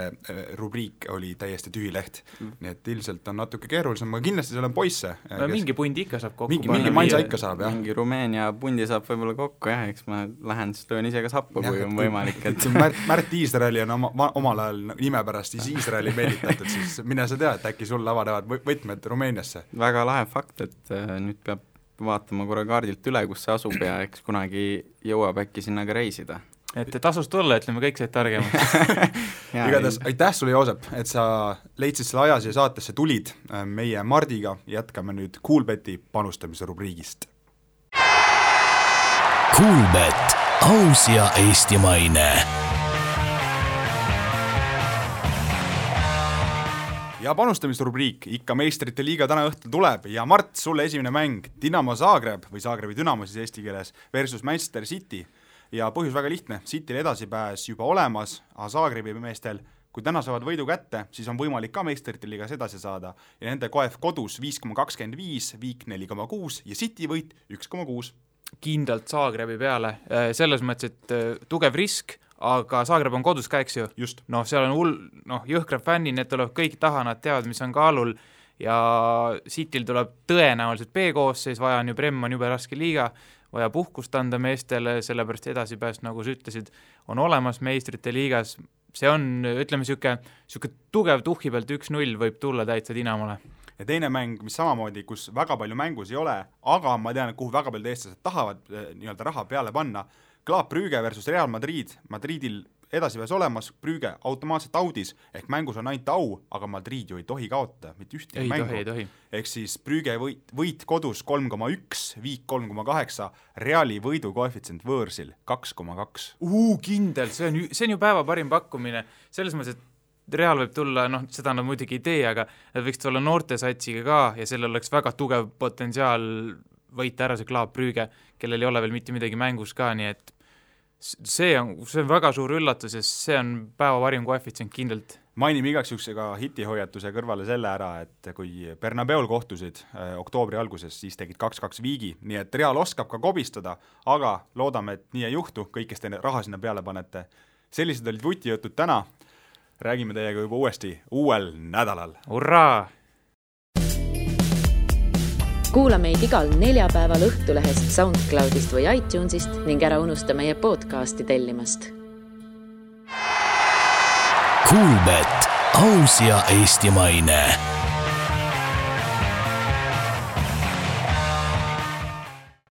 rubriik oli täiesti tühi leht. Nii et ilmselt on natuke keerulisem, aga kindlasti seal on poisse. Mingi pundi ikka saab kokku. Mingi mansa ikka saab, jah. Mingi Rumeenia pundi saab võib-olla kokku, jah, eks ma lähen, siis löön ise ka sappu, kui on võimalik. Et... Märt Iisraeli on omal ajal nime pärast Iisraeli meelitatud, siis mine sa tea, et äkki sul avanevad võtmed Rumeeniasse. Väga lahe fakt, et nüüd peab vaatama korra kaardilt üle, kus see asub ja eks kunagi jõuab äkki sinna ka reisida. Et tasus tulla, ütleme, kõik said targemaks. Igatahes aitäh sulle, Joosep, et sa leidsid selle aja siia saatesse tulid. Meie Mardiga jätkame nüüd Kuulbeti panustamise rubriigist. Kuulbet, aus ja eestimaine. Ja panustamisrubriik, ikka meistrite liiga täna õhtul tuleb ja Mart, sulle esimene mäng Dinamo Zagreb või Zagrebi Dynamo siis eesti keeles versus Manchester City ja põhjus väga lihtne, Cityl edasipääs juba olemas, aga Zagrebi meestel, kui täna saavad võidu kätte, siis on võimalik ka meistrite liigas edasi saada ja nende KF kodus 5,25, Viik 4,6 ja City võit 1,6. Kindlalt Zagrebi peale, selles mõttes, et tugev risk, aga Zagreb on kodus ka, eks ju? Just. Seal on jõhkrad fännid, need tulevad kõik taha, nad teavad, mis on kaalul ja Cityl tuleb tõenäoliselt B-koosseis, vaja on ju Prem on jube raske liiga, vaja puhkust anda meestele, sellepärast edasipääs, nagu sa ütlesid, on olemas meistrite liigas. See on, ütleme, siuke tugev tuhhi pealt 1-0 võib tulla täitsa Dynamole. Ja teine mäng, mis samamoodi, kus väga palju mängus ei ole, aga ma tean, kuhu väga palju eestlased tahavad nii-öelda raha peale panna, Klaap Brügge versus Real Madrid. Madridil edasiväes olemas, Brügge automaatselt audis, ehk mängus on ainult au, aga Madrid ju ei tohi kaotada, mitte ühtegi mängu. Ei tohi. Ehk siis Brügge võit kodus 3,1, viik 3,8, Reali võidu koefitsient võõrsil 2,2. Kindel, see on ju päeva parim pakkumine, selles mõttes, et Real võib tulla, seda nad muidugi ei tee, aga nad võiks tulla noortesatsiga ka ja sellel oleks väga tugev potentsiaal võita ära see Club Brügge, kellel ei ole veel mitte midagi mängus ka, nii et see on väga suur üllatus ja see on päeva parim koefitsient kindlalt. Mainime igaks juhuks ka hitihoiatuse kõrvale selle ära, et kui Bernabeul kohtusid oktoobri alguses, siis tegid 2-2 viigi, nii et Real oskab ka kobistada, aga loodame, et nii ei juhtu, kõik, kes te raha sinna peale panete. Sellised olid vutijutud täna. Räägime teiega juba uuesti uuel nädalal. Hurraa! Kuula meid igal neljapäeval Õhtulehest, SoundCloudist või iTunesist ning ära unusta meie podcasti tellimast. Kuulbet, aus ja eestimaine.